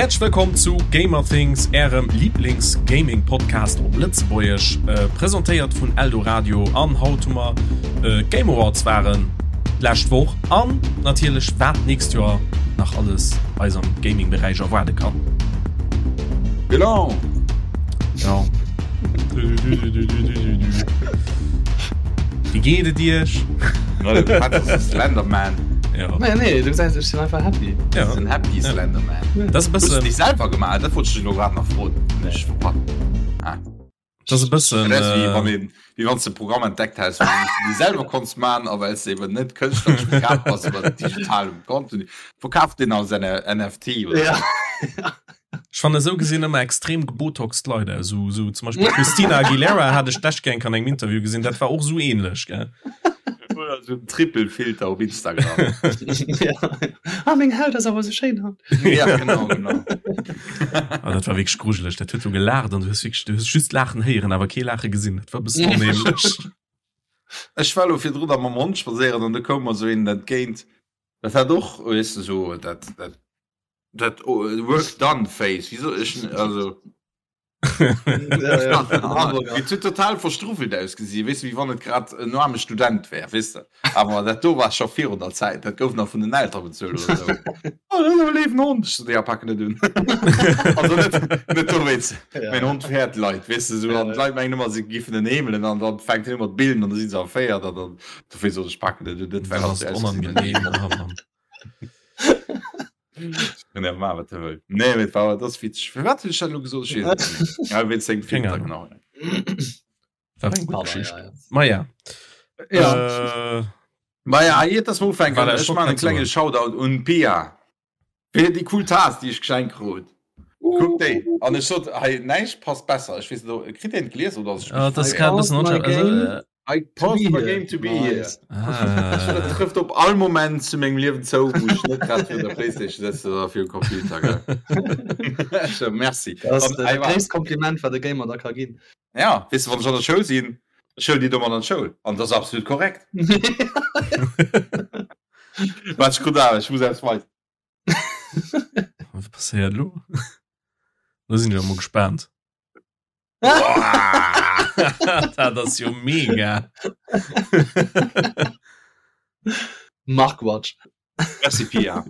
Häerzlech wëllkomm zu Gamerthings, ärem Lieblings-Gaming-Podcast op Lëtzebuergesch, presentéiert vun Eldoradio. An haut hu mer d'Game Awards waren d'lescht Woch an natierlech wat d'nächst Joer nach alles eis am Gaming-Beräich erwaarde kann. Genau. Ja. Wéi geet et Iech? Slenderman. Ja. Nee, nee, du gesäis, ech sinn einfach happy. Ja. Den Happy Ja. Slenderman. Das ist Hues du e bëssen, déi selwer gemaach? Dat wollt ech dech elo grad nach froen. Ech verpasst. Ah. das ist e bëssen. Dat ass wéi Äh, wann een, wéi wann s de e Programm entdeckt häss, wou du déi selwer konns man, a well s de eben net kënschtleresch begabt bass iwwer digitalem Contenu, verkaaft deen als NFT oder Ja. Ech fannen esou gesinn ëmmer extrem gebotoxt Leit aus. Sou, sou zum Beispill Christina Aguilera hat ech d'lescht Kéier an engem Interview gesinn, dat war och sou ähnlech, gell? Oder sou en Triple-Filter op Instagram. ja. Ah, meng Haut ass awer sou schéin haut. ja, genau, genau. Ah, dat war wierklech grujeleg. Dat huet sou gelaacht an du hues wierklech, du hues just Laachen héieren, awer kee Laache gesinn. Dat war e bëssen onheemlech. Ech war lo virdrun da mam Hond spadséieren an du koum mer sou een entgéint. Dat hat och, weess de, sou dat, dat Dat work done face wieso ech also Et huet total verstruffelt ausgesi weess de wéi wann et grad en aarme Student wär weess de awer dat do war scho virun der Zäit dat gouf nach vun den Eltere bezuelt oder sou. Oh dat ass awer e léiwen Hond ech sot ja pak en net un also net net dowéinst mäin Hond fäert Leit weess de sou an d'Leit mengen ëmmer se giffen en heemelen an dann fänkt hien u mat billen an da si se erféiert an dann dofir sot ech pak en net un dat Dat war ass onangenehm oh Mann. Kann ma wat wëll. Nee mit war das witzeg. Fir wat hunn ech dat elo gesot? Ech weess et net méi. Ja, wéinst sengem Keng Filter, Ahnung. genau. War eng gutt Pardon, Geschicht. ja, ja. Ma ja. Ja. Äh, Ma ja, iert dass mer ufänken, Voilà, ech ech wollt man en grad klenge soen. Shoutout un d'Pia fir déi cool Taass, déi ech geschenkt krut. Kuck déi. An ech sot, hei näischt passt besser. Ech weess net, ob kritt een d'Glies oder ass ech Ja, mech das verléiert? kann ein bisschen Pause my unscharf. Also, game. äh, I To pause be my here. game to be here. Nice. Dat ah. trëfft op all Moment zu mengem Liewen zou, wou ech net grad virun der Playstation sëtzen oder virum Computer. Gell? So, merci. Dat ass An, dat ey, wa- gréisst Kompliment, wat e Gamer da ka ginn. Ja, weess de, wann ech an der Schoul sinn, ech huelen déi domat an d'Schoul. An dat ass absolut korrekt. Wat ech krut awer, ech muss eppes weisen. Wat passéiert lo? Lo sinn ech emol gespaant. Dat ass jo mega. Markwatch. Merci Pia.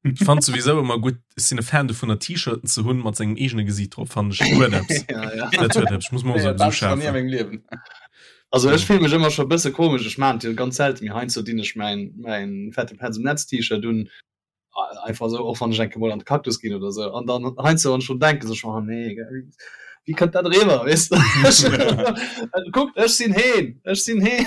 Ich fand sowieso immer gut ich sinn e Fan dovunner T-Shirten ze hunn mat sengem eegene Gesiit drop fand ech huet eppes. ja, ja. Dat huet eppes. Ich muss mal so Dat so war nie a schafen. mengem Liewen. Also ech fill mech ëmmer scho bësse komesch. Ech maan jo ganz selten, mee heiansdo dinn ech mäin mäin fette Petz um Netz T-Shirt un. Einfach sou, och wann ech eng Kéier mol an de Cactus ginn oder sou. An dann heiansdo wann ech drun denken, sou ech, oh nee, gell, wéi kënnt dat eriwwer, weess de? Kuckt, ech sinn heen, ech sinn heen.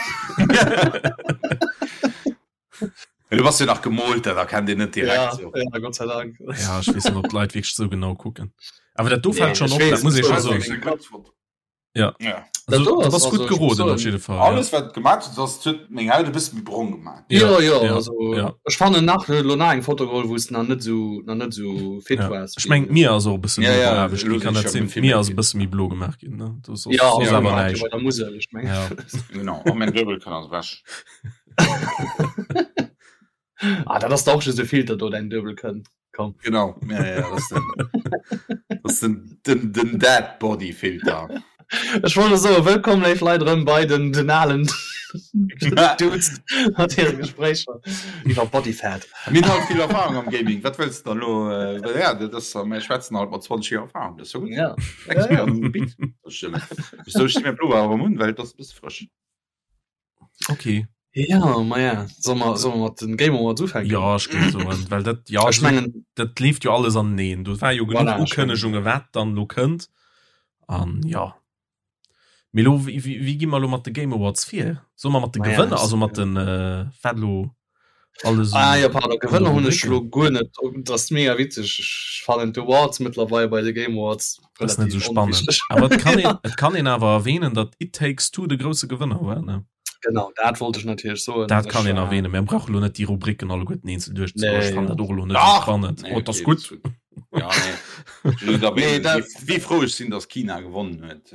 Du bass jo nach gemoolt, dat erkennt een net direkt. Ja, So. ja, Gott sei Dank. Ja, ech weess net, ob d'Leit wierklech sou genau kucken. Awer dat do Nee, fält schonn ech op, dat weess, muss ee ech scho weess. soen. Gutt Ja. Ja. Also, Dat do du ass bass also, gutt ech muss geroden op soen, jidde Fall. Alles wat gemaat huet ass huet meng Haut e bësse méi brong gemaat. Ja, ja, ja, also ja. ech fannen nach elo nach eng Foto geholl, wou s nach net sou nach net sou fit Ja. waars. Ech meng d'Mier ass och e bësse Ja, méi ja, beaarbecht elo ginn, kann sinn dat ech sinn? jo vill D'Mier méi ass e fit. bësse méi blo gemaach ginn, ne? Do soss Ja, soss also awer ja, näischt. bei der Musel, ech meng. Ja. Genau, a mäin Duebel kann ass ewech. Ah, dat ass da och just e Filter do, däin Duebel kënnt. Komm. Genau, ja, ja, dat ass den, dat ass den, den, den Dead Body Filter. Ech wollt elo soen, wëllkomm léif Leit erëm bei den, den alen Dudes mat hire Gespréicher iwwer Body Fat. Mir hunn halt vill Erfahrung am Gaming, wat wëlls de dann elo? Äh, ja, dat ass, mir schwätzen halt mat 20 Joer Erfahrung, dat ass jo gutt. Ja. Expert Ja, ja. am Gebitt. Dat stëmmt. Sou, ech sti mäi Pullover awer erëm un, well et ass e bësse frësch. Okay. Ja, ma ja. Soll mer, soll mer mat den Game Awards ufänken? Ja, ech géif soen, well dat, ja, Ech mengen, dat leeft jo alles aneneen. Do war jo genuch Voilà, ech mengen- Ukënnegunge, wat dann lo kënnt. An ja. Mee lo, wéi, wéi, wéi gi mer lo mat de Game Awards vir? Solle mer mat de Ma ja, Gewënner, ech- also mat den, äh, wat lo alles Ah un- ja, pardon, an de Gewënner hunn ech Rubriken? lo guer net. Dat ass mega witzeg. Ech fannen d'Awards mëttlerweil bei de Game Awards Das ist net relativ so spannend. onwichteg. Awer et kann een, et kann een awer erwähnen, datt It Takes Two de grousse Gewënner war, ne? Genau, dat wollt ech natierlech soen. Dat kann Ech een war- erwähnen. Mir brauche lo net déi Rubriken alleguerten eenzel duerchzegoen. Nee, Ech fannen ja. dat och elo net sou Dach! spannend. Nee, Oh, dat ass okay, gutt. dat ass gutt. Ja, nee. Just Nee, erwähnen, dat- wéi, wéi frou ech sinn, dass China gewonnen huet.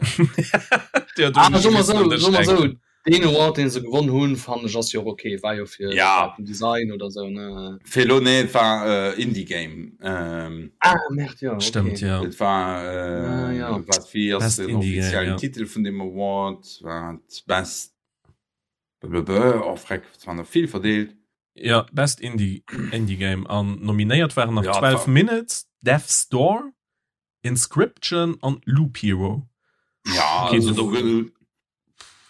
Ja, do Ah, hunn ech soe mer missen sou, un dech soe mer sou, denken. Deen Award deen se gewonn hunn fannen ech ass jo och ok, war jo fir ja. den Design oder sou ne. Fir elo nee et war äh, Indie Game. Ähm, ah merde ja. Okay. Stimmt ja. Et war äh, ah, ja. wat wéi ass Best den Indie Game, offiziellen ja. Titel vun dem Award war Best blablabla, oh freck, et waren der vill verdeelt. Ja Best Indie Indie Game an nominéiert waren nach Ja, et 12 war Minutes, Death's Door, Inscryption an Loop Hero. Ja, okay, also do do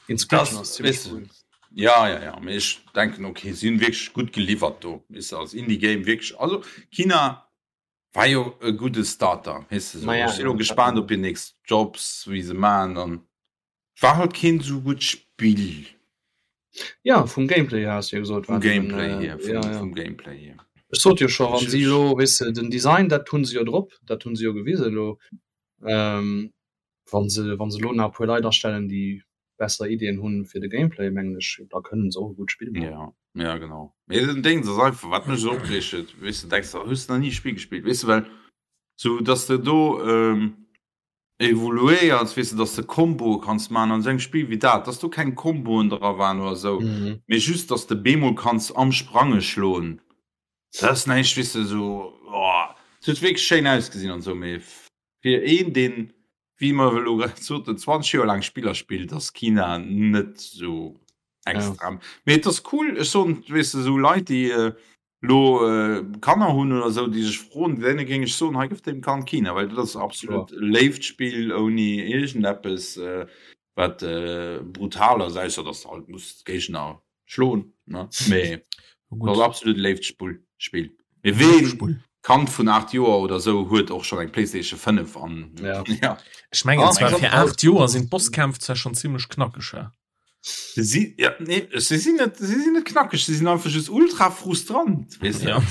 Inscryption Das, ass ziemlech weißt du, cool. Ja, ja, ja, mee ech denken okay, si hunn wierklech gutt geliwwert do, weess de, als Indie Game wierklech. Also Kina war jo e gudde Starter, weess de, sou. Ma ja, Ech sinn elo ja, dat gespaant op hir nächst Jobs, wéi se maachen an war halt keen sou gutt Spill. Ja, vum Gameplay hier has du jo gesot, Vum war den, Gameplay äh, hier, vum, ja, ja. vum Gameplay hier. Ech sot jo scho, wann Ech, si ech, elo, weess de, den Design, dat hunn se jo drop, dat hunn se jo gewisen elo. Ähm, wann se, wann se elo nach e puer Leit astellen, déi besser Iddien hunn fir de Gameplay, mengen ech, da kënnen se och e gutt Spill maachen. Ja, ja, genau. Mee den Déngs ass einfach, wat mech esou opreegt huet, weess de, denks de, hues de nach ni e Spill gespillt, weess de, well sou, dass de do, ähm, evoluéiers, weess de, dass de Komboe kanns maachen an esou engem Spill wéi dat, dass do keng Komboen dra waren oder esou, Mhm. mee just, dass de bemol kanns am Sprange schloen, dat ass näischt, weess de, esou, oh, et huet wierklech schéin ausgesinn an esou, mee fir een, deen, wéi mer elo grad soten, 20 Joer laang Spiller spillt, ass Kina net esou Ja. extra. Mee et ass cool, ech soen, weess de, esou Leit, déi lo Kanner hunn oder esou, déi sech froen, deene géing ech soen, hei gëff deem Kand Kina, well dat ass absolut Kloer. e léift Spill ouni iergendeppes, wat brutal ass, ausser dass de halt muss d'Géigner schloen, ne, mee Gutt. ass absolut e léift Spull, Spill. Mee ween Kand vun 8 Joer oder esou huet och schonn eng Playstation 5 an Ja. ja. Ech mengen Ah, zwar eng fir 8 Joer sinn d'Bosskämpf zwar schonn zimmlech knackeg, hä? Se si, ja, nee, se sinn net, se sinn net knackeg, se sinn einfach just ultra frustrant, weess de. Ja.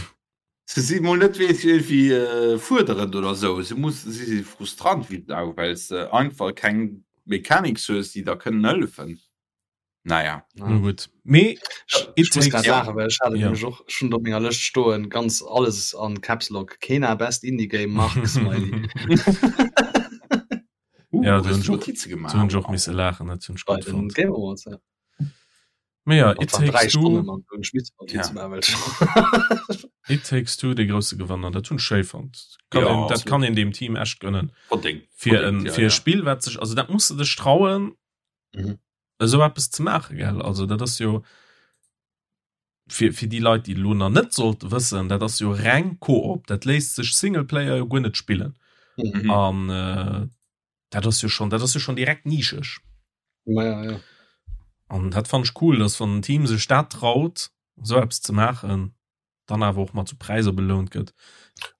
Se si mol net weess irgendwie äh, fuerderend oder sou. Se muss, se si frustrant wéi d'Sau, well se einfach keng Mechanics hues, déi der kënnen hëllefen. Naja. Ja. No gutt. Mee Ech It muss Takes grad Ja. laachen, well ech hat et Ja. nämlech och schonn op menger Lëscht stoen, ganz alles an Caps Lock, Kena Best Indie Game Mark Smiley. Uh, Ja, do hues hunn du ech och, Notize do hunn gemaach? ech och misse laachen, dat hunn ech Bei gutt den fonnt. Game Awards, ja. Mee ja, Dat It waren 3 Takes Two, Stonnen an hunn ech misse Notize Ja. maachen, well ech It Takes Two, dee grousse Gewanner, dat hunn ech schéi fonnt. Kann Ja, een, dat absolut. kann een deem Team echt gönnen. Verdéngt. Fir Verdéngt, en, ja, fir e ja. Spill, wat sech, also dat muss de dech trauen, Mhm. esou eppes ze maachen, gell? Also dat ass jo fir, fir déi Leit, déi elo nach net sollte wëssen, dat ass jo reng Koop, dat léisst sech Singleplayer jo guer net spillen. Mhm. Mhm. An äh, dat ass jo schon, dat ass jo schon direkt nischeg. Ma ja, ja. An dat fand ech cool, dass wann en Team sech dat traut, esou eppes ze maachen, dann awer och mat sou Präisser belount gëtt.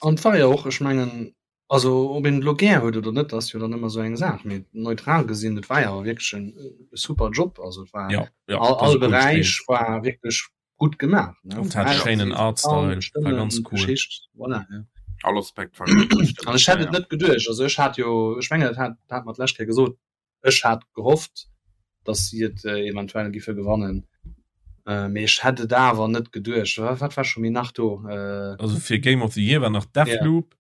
An et war jo och, ech mengen, also ob een et elo gär huet oder net, ass jo dann ëmmer esou eng Saach, mee neutral gesinn, et war jo awer wierklech en super Job. Also et war Ja, ja, all, dat ass all e coolt Spill. Beräich war wierklech gutt gemaach, ne? Und Vum hat schéinen Aussehen, Artstyle, Sound, war Stëmmen, ganz cool. Geschicht, voilà, ja. All Aspekt war gutt, An stimmt, ech hätt ja, et ja. net geduecht, also ech hat jo, ech mengen, dat hat, dat hat mer d'lescht Kéier gesot, Ech hat gehofft, datt si et eventuell giffe gewannen, mee ech hätt et awer net geduecht. Wat war scho méi nach do? Also fir Game of the Year war nach Deathloop,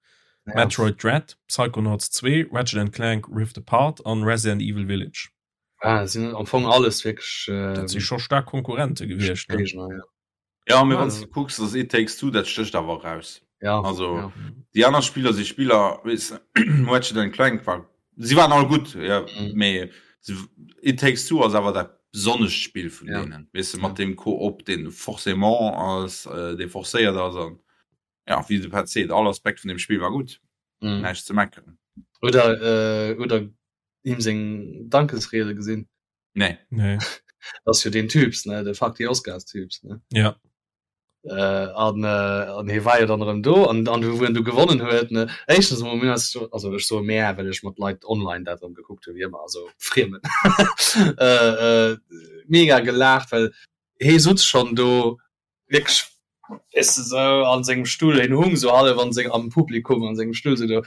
ja. Metroid Dread, Psychonauts 2, Ratchet and Clank Rift Apart an Resident Evil Village. Ah, sinn am Fong alles wierklech. Dat si scho staark Konkurrente gewiescht. Ne? Géigner, ja. Ja, mee wann s de kucks, dass It Takes Two, dat stécht awer eraus. Ja, Also ja. déi aner Spiller si Spiller, weess Ratchet and Clank war, si waren all gutt, ja, Mhm. mee se, It Takes Two ass awer dat besonnescht Spill vun Ja. deenen, weess de, Ja. mat deem Koop, deen forcément ass, äh, dee forcéiert ass an ja, wéi de Pat seet, all Aspekt vun deem Spill war gutt, Mhm. näischt ze meckeren. Oder, äh, oder him seng Dankesriede gesinn. Nee. Nee. Das jo den Typs ne de Fuck die Oscars Typs ne Ja. Äh, an äh, an hie war jo dann erëm do an an wou en du gewonnen huet ne éischtens emol mir ass also ech soe mär well ech mat Leit online dat erëm gekuckt hu wéi ëmmer also Friemen äh, äh, mega gelaacht well hie sutz schonn do wierklech. Weess de, sou an sengem Stull, hien hung sou hallef an seng, am Publikum an sengem Stull sou do,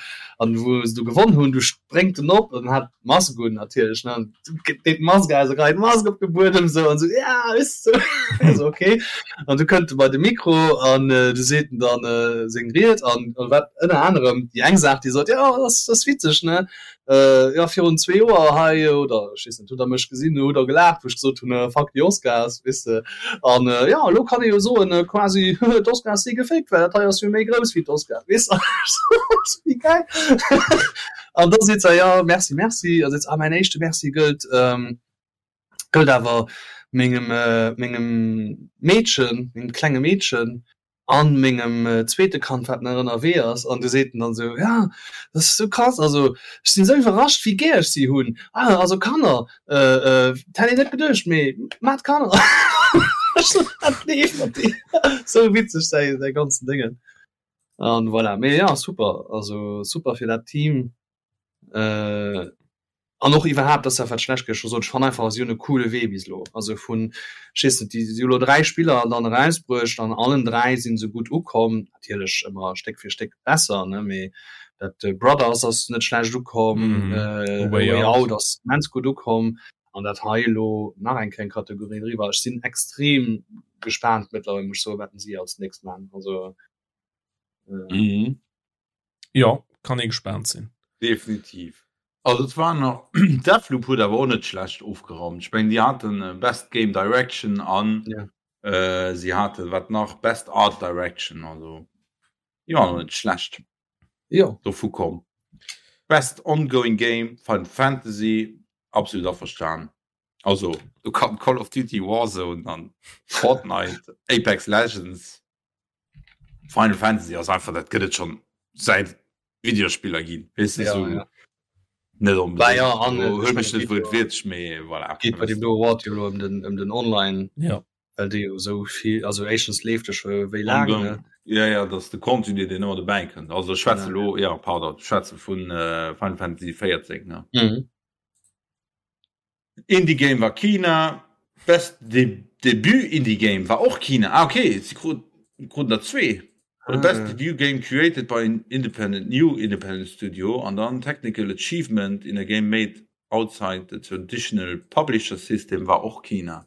an wou se du gewonn hunn, du spréngt en op an hat d'Mask un natierlech, ne, an deet d'Mask aus a geheit d'Mask op de Buedem sou an sou, ja, weess de, sou, sou okay. An du kënnt e bei de Mikro an du seet en dann seng Ried an wat ënner anerem déi eng Saach, déi sot, jo, dat ass, dat ass witzeg, ne, Jo, virun zwee Joer hei, oder ech weess net, hutt Der mech gesinn, hutt Der gelaacht, wou ech gesot hunn, Fuck the Oscars, weess de. An jo, elo kann ee jo soen, quasi, d'Oscars si gefaked, well dat hei ass jo méi grouss wéi d'Oscars, weess de. Wéi gäil! An da seet se, jo, merci, merci. A seet se, ah, mäin éischte Merci gëllt, gëllt awer mengem, mengem Meedchen, mengem klenge Meedchen, an mengem zweete Kand wat nach ënnerwee ass an du seet en dann esou, ja dat ass esou krass, also ech sinn esou iwwerrascht wéi gär ech si hunn, ah also Kanner dat hätt een net geduecht, mee maacht Kanner. Ech sot wat leeft mat dir, esou witzeg säi säi ganzen Déngen an voilà, mee ja super, also super fir dat Team. An och iwwerhaapt, ass dat wat ech d'lescht Kéier scho sot, ech fannen einfach, si hunn e coole Wee bis elo. Also vun, ech weess net, déi si hu elo 3 Spiller dann erausbruecht, an allen 3 si se gutt ukomm. Natierlech ëmmer Stéck fir Stéck besser, ne, mee dat Brothers ass net schlecht ukomm, A Way Out ass immens gutt ukomm an dat hei elo nach eng kleng Kategorie driwwer. Ech sinn extrem gespaant mëttlerweil, muss ech soen, wat si als nächst maachen. Also. Jo, kann ee gespaant sinn. Definitiv. Also et war nach, Deathloop huet awer och net schlecht ofgeraumt. Ech mengen déi haten Best Game Direction an si haten, wat nach, Best Art Direction, also déi waren och net schlecht Jo. dovu komm. Best Ongoing Game, Final Fantasy, absolut averstan. Also do kann Call of Duty Warzone an Fortnite, Apex Legends, Final Fantasy ass einfach dat gëtt et schon säit Videospiller ginn weess de Ja, sou ja. net Bah onbedéngt ja, an elo ech huel mech mengen, net et geet jo wuertwiertlech mee voilà geet bei deem do Award jo elo ëm den ëm den Online, Ja. well dee jo esou vill, also éischtens leeft e scho wéi laang, ne? Ongoing ja ja dat ass de Contenu deen ëmmer dobäi kënnt also ech schwätze Genau, elo ja pardon ech schwätze vun Final Fantasy 14 ne. Mhm. Indie Game war Kina, Best Debut Indie Game war och Kina. Ah okay, si kruten der zwee. The Best Debut Game created by an independent new independent studio an dann Technical Achievement in a Game made outside the traditional publisher system war och Kina.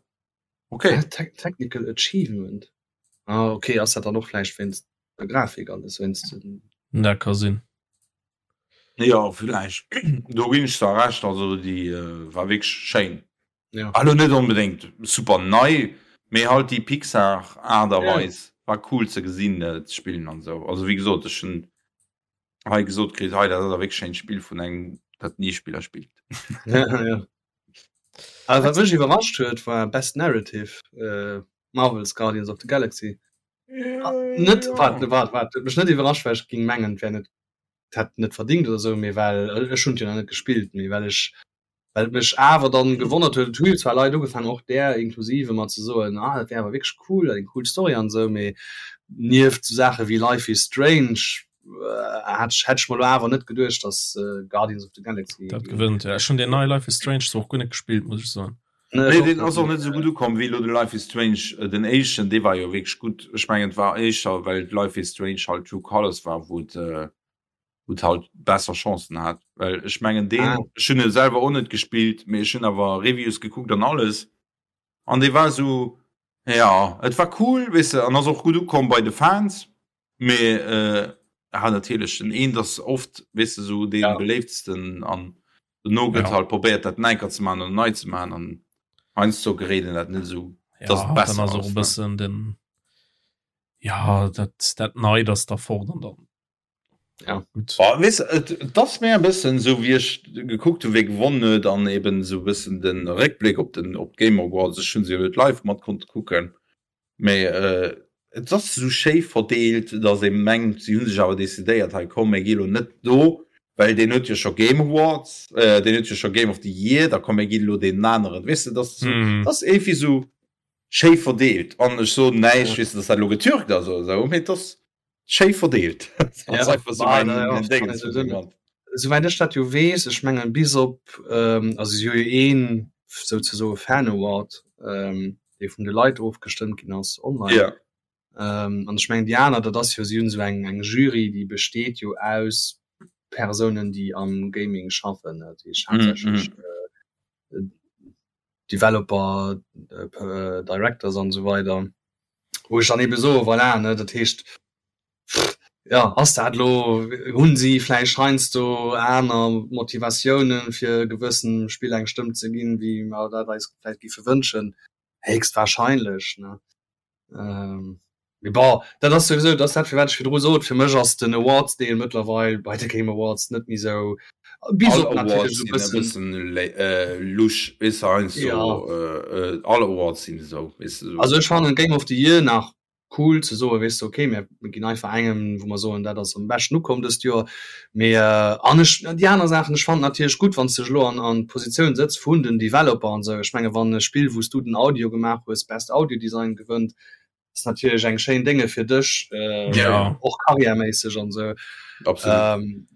Okay. Technical Achievement? Ah okay, ass dat dann och vläicht wéinst der Grafik alles, wéinst den. Dat ka sinn. Jo villäicht, do ginn ech der Recht, also déi war wierklech schéin. Ja. Elo net onbedéngt super nei, mee halt déi Pixar Aart a Ja. Weis war cool ze gesinn, ze spillen an esou. Also wéi gesot, ech hunn hei gesot kritt, hei dat ass a wierklech schéint Spill vun engem dat ni Spiller spillt. Ja, ja. Also wat mech iwwerrascht huet war Best Narrative, Marvel's Guardians of the Galaxy. Net, waart, waart, waart, huet mech net iwwerrascht, well ech géing mengen, et wär net hätt net verdingt oder sou, mee well ech hunn et jo nach net gespillt, mee well ech well et mech awer dann gewonnert huet, et hu jo zwar Leit ugefaangen, och där inklusive, mat ze soen, ah dat wär awer wierklech cool, eng cool Story an esou, mee nieft sou Saache wéi Life is Strange hat ech hätt ech mer elo awer net geduecht, dass Guardians of the Galaxy dat gewënnt. Ja, ech hunn deen neie Life is Strange zwar och guer net gespillt, muss ech soen. Nee, deen ass och net esou gutt ukomm wéi elo de Life is Strange, den éischten, dee war jo wierklech gutt. Ech mengen et war éischter well Life is Strange halt True Colors war, wou et wou et halt besser Chancen hat, well ech mengen deen, Ah. ech hunn e selwer och net gespillt, mee ech hunn awer Reviews gekuckt an alles an dee war esou, jo et war cool, weess de, an ass och gutt ukomm bei de Fans, Mee ja natierlech den eent ass oft weess de sou dee Ja. beléiftsten an dono gëtt Ja. halt probéiert dat neiker ze man an nei ze man an heiansdo geréit een dat net esou Ja, dass et dann besser ass och ass e ne. bëssen den ja dat dat Neit ass da fort an dann Ja. gutt. Oh, weess et et ass méi e bëssen esou wéi ech gekuckt hunn wee gewonnen huet an eben esou e bëssen de Réckbléck op den op d'Game Awards, ech hunn se jo net live mat konnte kucken, Mee et ass esou schéi verdeelt, datt ee mengt, si hu sech awer decidéiert, hei komm, mir gi lo net do, well deen huet jo scho Game Awards, deen huet jo scho Game of the Year, da komm mir ginn elo deenen aneren. Weess de, dat ass esou, dat ass iergendwéi esou schéi verdeelt. An ech soen näischt, weess de, datt dat elo getürkt ass oder esou, mee et ass schéi verdeelt. Ja, Souwäit ech dat jo weess, ech mengen bis op also si hu jo een souzesoe Fan Award, dee vun de Leit ofgestëmmt ginn ass online. Ja. Ähm, an ech mengen déi aner, dat ass jo, si hunn esou eng eng Jury, déi besteet jo aus Persounen, déi am Gaming schaffen, dat heescht haaptsächlech mm -hmm. äh, Developer, äh, Directors an esou weider. Wou ech dann ebe soe voilà, ne, dat heescht ja, ass dat lo, hunn si vläicht heiansdo aner Motivatiounen, fir gewëssen Spill eng Stëmm ze ginn, wéi mer dat eis vläicht géife wënschen? Héchstwahrscheinlech, ne. Ähm, mee bon, dat ass souwisou, dat ass dat, firwat ech virdru sot, fir mech ass den Awards-Deel mëttlerweil bei de Game Awards net méi sou, bis op natierlech esou e bëssen lusch, weess de, heiansdo, ja. All Awards sinn esou, weess de. Also ech fannen Game of the Year nach cool ze soen, weess de, okay, mir ginn einfach engem, wou mer soen, dat ass am beschten ukomm dëst Joer. Mee an ech, déi aner Saachen, ech fannen natierlech gutt, wann s de dech elo an an d'Positioun sëtz vun den Developer an esou. Ech menge wann e Spill, wou s du den Audio gemaach hues, Best Audio Design gewënnt, ass natierlech eng schéin Dénge fir dech, och karriärméisseg an esou.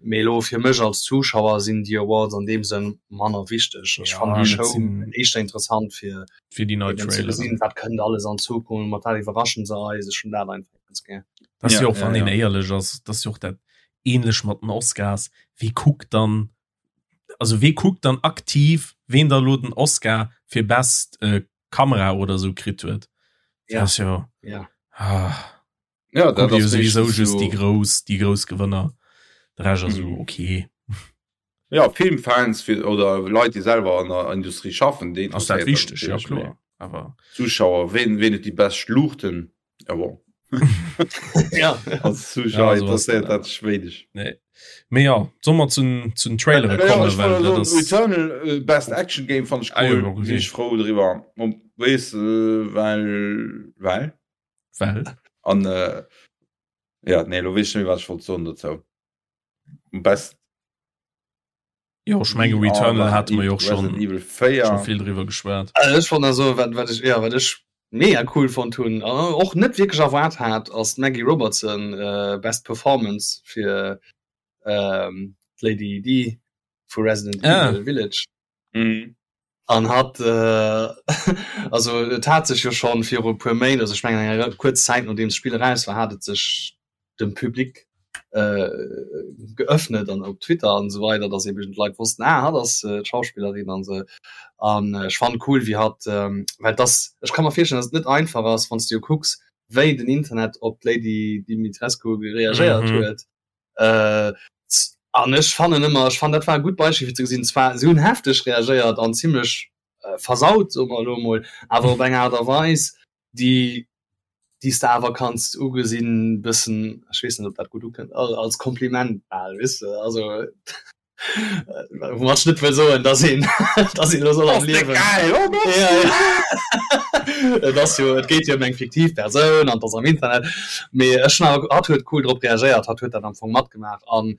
Mee elo fir mech als Zuschauer sinn déi Awards an deem Sënn manner wichteg. Ech fannen déi Show éischter interessant fir fir déi nei Traileren. Gesinn, wat kënnt alles an Zukunft, mat wat iwwerraschen se eis. Ech hunn dat einfach ganz gär. Dat ass jo och, wann een éierlech ass, dat ass jo och dat ähnlech mat den Oscars. Wie kuckt dann, also wee kuckt dann aktiv, ween da lo den Oscar fir Best äh, Kamera oder sou kritt huet? Ja. Das jo. Ja. Ah. Ja, dat ass sowieso just déi grouss, déi grouss Gewënner. De Rescht ass esou okay. Ja, Filmfans fir, oder Leit, déi selwer an der Industrie schaffen, déi ass dat wichteg, ja kloer. Awer Zuschauer, ween, ween huet déi bescht Luuchten? Ja bon. Ja. Als Zuschauer ja, interesséiert dat dech wéineg. Nee. Mee ja, soll mer zu zu den Trailere ja, kommen, well dat ass Returnal äh, Best Action Game fand ich cool. Ah, ja, okay. Sinn ech frou driwwer. Weess äh, well well Well? An äh, ja, nee, lo weess ech net méi, wat ech wollt soen dozou. Best Jo, ech menge Returnal hate mer jo och schon, Resident Evil 4. schon vill driwwer geschwat. Also ech fand also wat wat ech ja wat ech mega cool fonnt hunn an och net wierklech erwaart hat ass d'Maggie Robertson äh, Best Performance fir ähm, d'Lady D vu Resident Ah. Evil Village. Mhm. An hat äh, also et hat sech jo schonn viru e puer Méint, also ech mengen eng re kuerz Zäit nodeems d'Spill eraus war, hat et sech dem Public äh, geöffnet an op Twitter an esou weider, dass eben d'Leit wossten, ah hatt ass äh, d'Schauspillerin an esou. An ech fannen cool wéi hatt, ähm, well dass ech ka mer virstellen, dass et net einfach ass, wann s de jo kucks wéi den Internet op d'Lady Dimitrescu reagéiert Mhm. huet. Äh, an ech fannen ëmmer, ech fannen dat war e gutt Beispill fir ze gesinn, zwar si hunn hefteg reagéiert an zimlech äh, versaut, soe mer elo emol, awer op eng Aart a Weis, déi déi s de awer kanns ugesinn, bëssen, ech weess net, ob dat gutt ukënnt, als Kompliment bal, weess de, also Woumat ech net wëll soen, dass een dass een elo soll am Liewen Ja, ja. Et ass jo, et geet jo ëm eng fiktiv Persoun an et ass am Internet. Mee ech hunn awer, hatt huet cool drop reagéiert, hatt huet dat am Fong matgemaach an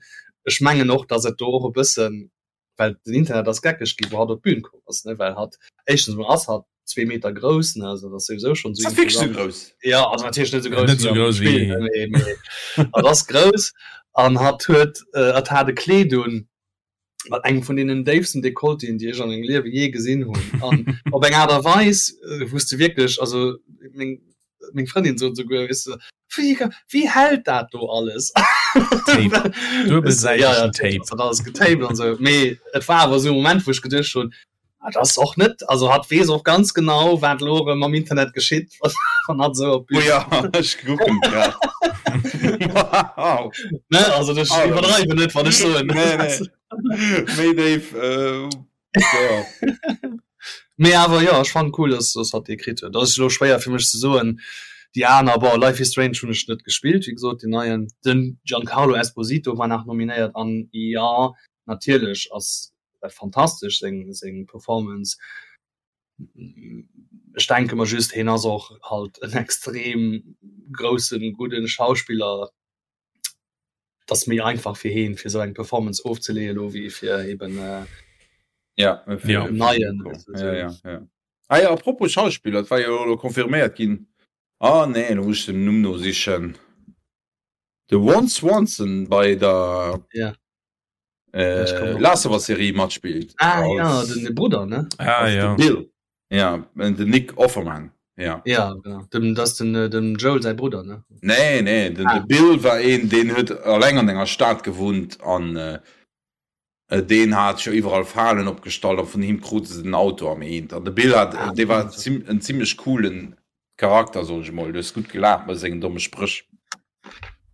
ech mengen och, dass et do och e bëssen, well den Internet ass geckeg gi wou hatt op d'Bün komm ass, ne, well hatt éischtens emol ass hatt zwee Meter grouss, ne, also dat ass souwisou schonn esou imposant. Grouss? Ja, also natierlech net esou grouss Net esou grouss wéi wéi am Spill, mee, mee hatt ass grouss an hatt huet, hatt hat e Kleed un mat engem vun deenen déifsten Dekolletéen, déi ech an mengem Liewe jee gesinn hunn an op eng Aart a Weis, wou s de wierklech, also meng, meng Frëndin sot esouguer, weess de, wéi, wéi hält dat do alles? Tape, duebelsäitegen ja, ja, Tape. Dat alles getaped an esou. Mee et war awer esou e Moment, wou ech geduecht hunn, ah, dat ass och net, also hatt weess och ganz genau, wat elo erëm am Internet geschitt, wann hatt esou op d'Bün. Oh ja, ech kucken grad. Wow. Ne, also ech iwwerdreiwen net, wann ech soen. Nee, nee. Méi déif. Äh, ja. Mee awer jo, ech fannen cool, dass dass hatt dee kritt huet. Dat ass elo schwéier fir mech ze soen. Déi aner, bon, Life is Strange hunn ech net gespillt, wéi gesot, deen neien. Den Giancarlo Esposito war nach nominéiert an jo, natierlech ass dat fantastesch seng seng Performance. Ech denke mer just, hien ass och halt en extrem groussen, gudden Schauspiller. Et ass méi einfach fir heen, fir esou eng Performance ofzeleeën elo wéi fir eben äh, ja, fir ja. neien. Ja, ja, ja. Ah ja, apropos Schauspiller, et war jo elo confirméiert ginn. Ah nee, lo muss ech den Numm nosichen. De Ron Swanson bei der ja. äh, Last of Us Serie matspillt. Ah ja, den Brudder, ne? Ah ja. Bill. Ja, den Nick Offerman. Ja. Ja, genau. Dem, das den, äh, dem Joel säi Brudder, ne? Nee, nee, den, ah. de Bill war een, deen huet alleng an enger Stad gewunnt an äh, äh, deen hat jo iwwerall Falen opgestallt an vun him krute se den Auto am Eent. An de Bill hat, ah, dee war zim, en ziemlech coolen Charakter, soll ech mol. Du hues gutt gelaacht mat sengen domme Spréch.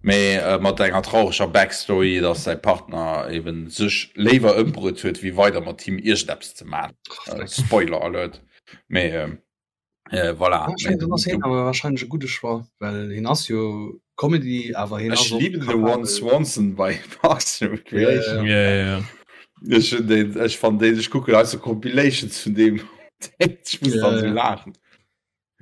Mee äh, mat enger traureger Backstory, dass säi Partner eben sech léiwer ëmbruet huet, wéi weider mat him iergendeppes ze man. Äh, Spoiler Alert. Mee äh, äh, voilà. Ja, ich mein, ass hien awer wahrscheinlech e gudde Choix, well hien ass jo Comedy, awer hien Ech ass och lieben de capabel. Ron Swanson bei Parks and Recreation. Ja, ja, ja. Ech hun den, ech fand den, ech kucken also Compilations vun dem. Ech muss Ja, dann so ja. laachen.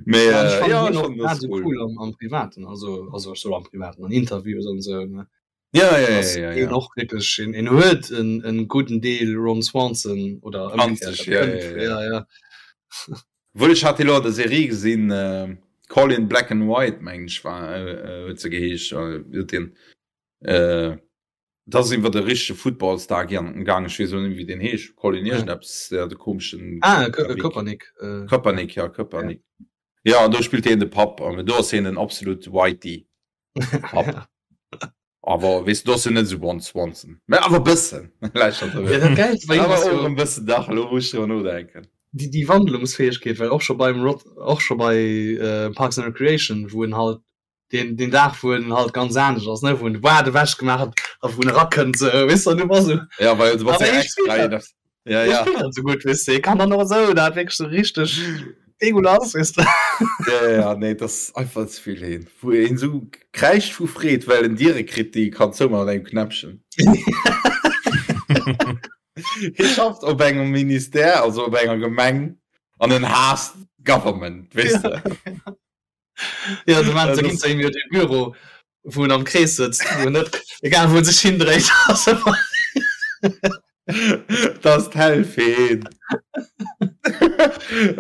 Mee Ja, ech äh, fannen ja, hien ech och fand das grad sou cool. cool am, am Privaten, also, also ech soll am Privaten, an Interviews an sou, ne. Ja, ja, ja, Ass ja, hien ja. och wierklech, hien, hien huet en, en gudden Deel Ron Swanson oder An ëmgekehrt, sech, dat ja, kënnt, ja, ja. ja, ja. Wuel ech hat elo an der Serie gesinn, äh, Call in Black and White, meng ech war, äh, äh, huet se geheescht, äh, huet den, äh, dat ass iwwer de richtege Footballstar gaangen, ech weess elo net méi wéi deen heescht, Colin iergendeppes, ja, de komeschen Ah, Ka Kappik. Kaepernick, äh. Kaepernick, ja, Kaepernick. Ja, an do spillt hien de Papp, an do ass hien den absolut Whitey Papp. Awer weess du, do ass hien net esou Ron Swanson, mä awer e bëssen. Ja, dat Gäilst bei him Awer ass och jo e bëssen dach, elo wou ech driwwer nodenken. déi, déi Wandlungsfäegkeet, well och scho beim Rod, och scho bei äh, Parks and Recreation, wou en halt den, den Dag wou en halt ganz anescht ass, ne, wou en de Bart ewech gemaach huet a wou en erakënnt, sou, weess du, an du bass sou, Ja, well du bass awer ja hie extra spillt dat, een ass. Ja, hie ja. spillt dat sou gutt, weess du, hie kann dann och esou dat wierklech sou richteg degueulass, weess du. Ja, ja, ja, nee, dat ass einfach ze vill heen. Wou een sou kräischt vu Freed, well en Diere kritt, déi e kann zoumaachen mat engem Knäppchen. Hie schafft op engem Ministère, also op enger Gemeng, an en haasst d'Government, weess de. Ja, du meinst, da ginn se jo de Büro, wou en am Krees sëtzt, wou en net, egal wou en sech hindréit, ass ëmmer. Dat ass d'Hell fir hien.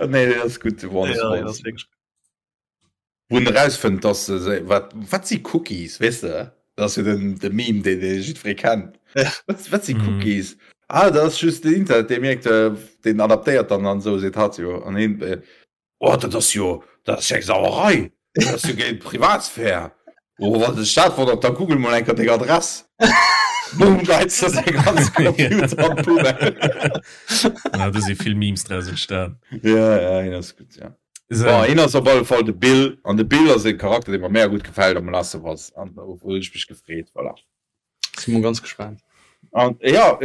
Nee, dat ass gutt, de Ron Ja, dat ass Swanson. wierklech. Wou en erausfënnt, dass se se, wat, wat si Cookies, weess de? Dat ass jo den, de Meme, deen dee jiddweree kennt. Ja. Wat, wat si Mhm. Cookies? Ah, dat ass just den Internet, dee mierkt, äh, deen adaptéiert dann an esou, seet hatt jo. An hien, äh, Oh, dat ass jo, dat ass jo eng Sauerei! Dat ass jo géint d'Privatsphär! Oh, wann dech dat wonnert, da google mol eng Kéier deng Adress. Boom, geits de säi ganze Computer an d'Poubelle. Ja, do si vill Memes draus entstan. Ja, ja, hien ass gutt, ja. So. Bon, hien ass op alle Fall de Bill, an de Bill ass e Charakter, dee mer mega gutt gefält am Last of Us, an do hunn ech mech gefreet, voilà. Si mol ganz gespaant. An, ja,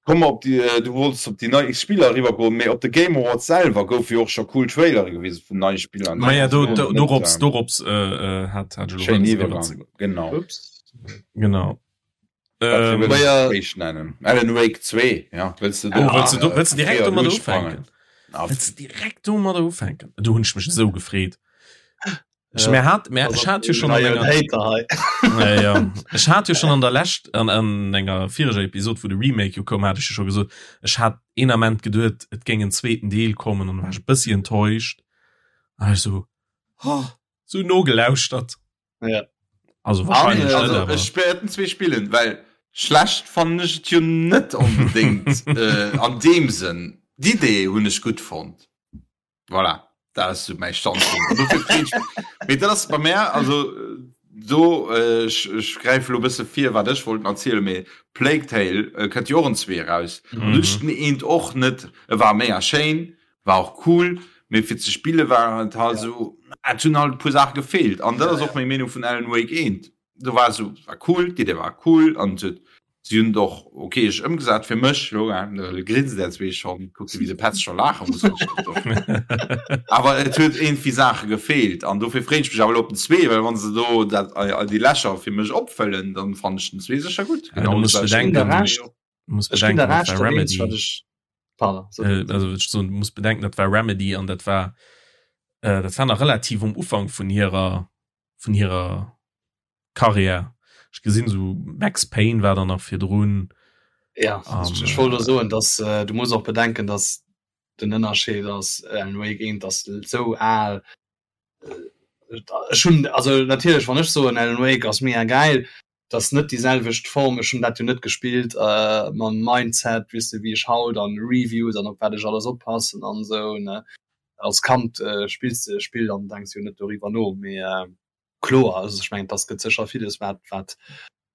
Komm op déi, du wollts op déi nei Spiller eriwwer goen, mee op de Game Awards selwer goufe jo och scho cool Trailere gewisen vun neie Spiller. Maja, do, do, dorops, dorops äh, hat, hat ech elo Schéin wëlles Iwwergang, eriwwer ze goen. genau. Ups. Genau. Wat fir Ähm, wëlls Maja. du éischt nennen? Alan Wake 2, ja, wëlls du do oh, wëlls du do, wëlls du direkt fréier domadder duerchsprangen? ufänken? Wëlls du direkt domadder ufänken? Do hunn ech mech esou gefreet. Ech Ja. mir hat mir Also, ech hat jo schon an neien enger Hater hei. ja, ja. Ech hat jo schon an der lescht an, an enger vireger Episode wo de Remake jo koum hat ech jo schon gesot ech hat een Ament geduet et géing en zweeten Deel kommen an war ech e bëssi enttäuscht an ech so oh, so nogelauschtert Ja. also An, wahrscheinlich net also awer ech wäerten zwee spillen, well schlecht fannen ech et jo net onbedéngt äh, an deem Sënn. D'Idee hunn ech gutt fonnt. Voilà, dat ass sou mäi Standpunkt. An dofir freet ech Mee dat ass bei mär, also do, ech, ech gräife lo e bësse vir, wat ech wollt erzielen, mee Plague Tale kënnt jo och en zwee eraus. An do hunn ech den eent och net, e war mega schéin, war och cool, mee fir ze spille war et halt esou, et hunn halt e puer Saache gefeelt. An dat ass och meng Meenung vun Alan Wake eent. Do war esou, war cool, d'Idee war cool an et huet Si hunn et och okay ëmgesat fir mech. Lo grinst der zwee schonn, kuckt wéi de Petz scho laache muss. Awer et huet iergendwéi Saache gefeelt an dofir freeën ech mech awer elo op den zwee, well wann se do dat déi Lächer fir mech opfëllen, dann fannen ech den zwee sécher gutt. Ja, du muss bedenken, du muss bedenken, dat war Remedy. Pardon, so. Äh, also ech soen, du muss bedenken, dat war Remedy an dat war äh, dat war nach relativ um Ufank vun hirer vun hirer Karriär. Ech gesinn sou Max Payne war dann nach virdrun. Ja um, ech wollt äh, soen, dass äh, du muss och bedenken, dass den Ënnerscheed ass äh, Alan Wake 1 ass sou al. Äh, ech hunn also natierlech wann ech soen Alan Wake ass mega geil, dat net déi selwecht Form ech hunn dat jo net gespillt äh, mam Mindset weess de wéi ech haut an Reviews an op wat ech alles oppassen an sou ne. Als Kand äh, spills de e Spill an denks jo net doriwwer no. Mee äh, kloer, also ech mengen, dass gëtt sécher villes, wat, wat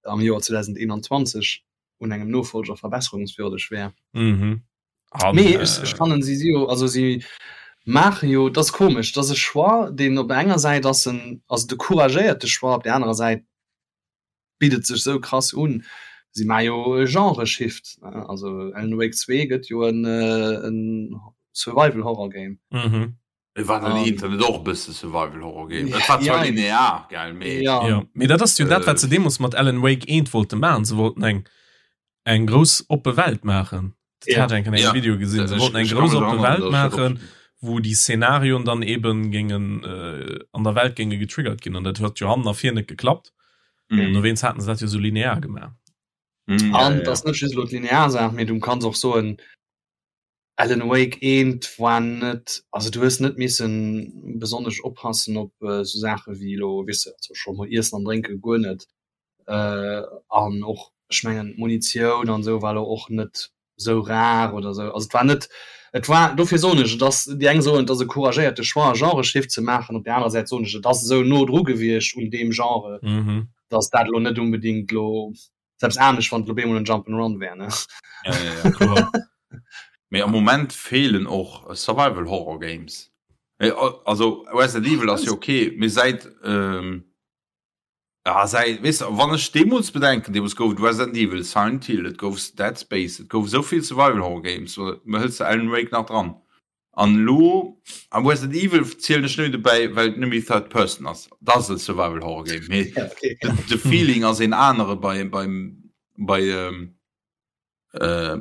am Joer 2021 un engem Nofolger verbesserungswürdeg wär. Mhm. An, Mee ech, ech äh, fannen si si jo, also si maache jo, dat ass komesch, dat ass e Choix, deen op der enger Säit ass en, ass et e couragéierte Choix, op der anerer Säit bitt et sech sou krass un. Si maache jo e Genre-Shift, ne? Also Alan Wake 2 gëtt jo en, en Survival-Horror-Game. Mhm. Et war den Internet och e bësse Survival-Horror Game. Et war zwar linear, gell, mee. Ja. Ja, mee dat ass jo dat, wat se deemools mat Alan Wake 1 wollte maachen. Se wollten eng, eng grouss oppe Welt maachen. Dat hat ech eng Kéier an engem Video gesinn. Se wollten eng grouss oppe Welt maachen, wou déi Szenarioen dann eben géingen an der Welt géinge getriggert ginn. An dat huet jo hannen a vir net geklappt. An dowéinst haten se dat jo sou linear gemaach. An et ass net just elo d'linear Saach, mee du kanns och soen, Alan Wake 1 war net, also du hues net missen besonnesch oppassen op esou Saache wéi elo, weess de, also scho mol Iessen an Drénke guer net, an och ech mengen d'Munitioun an esou war elo och net esou rar oder esou, also et war net, et war, dofir soen ech, et ass, déi eng soen et ass e couragéierte Choix e Genreshift ze maachen, op där anerer Säit soen ech, et ass esou no dru gewiescht un deem Genre, datt dat elo net unbedingt elo Selbst anescht wann et lo bemol en Jump and Run wär ne. Ja, ja, ja, kloer. Mee am Moment feelen och Survival Horror Games. Also Resident Evil ass jo okay, mee säit ähm, ja, säit weess de, wann ech deemools bedenken, deemools gouf et Resident Evil, Silent Hill, et gouf Dead Space, et gouf esou vill Survival Horror Games, hëls de Alan Wake nach dran? An elo am Resident Evil zielen ech net dobäi, well et net méi Third Person ass. Dat ass e Survival Horror Game, mee ja, okay. de, de Feeling ass een anere bei beim bei ähm, äh,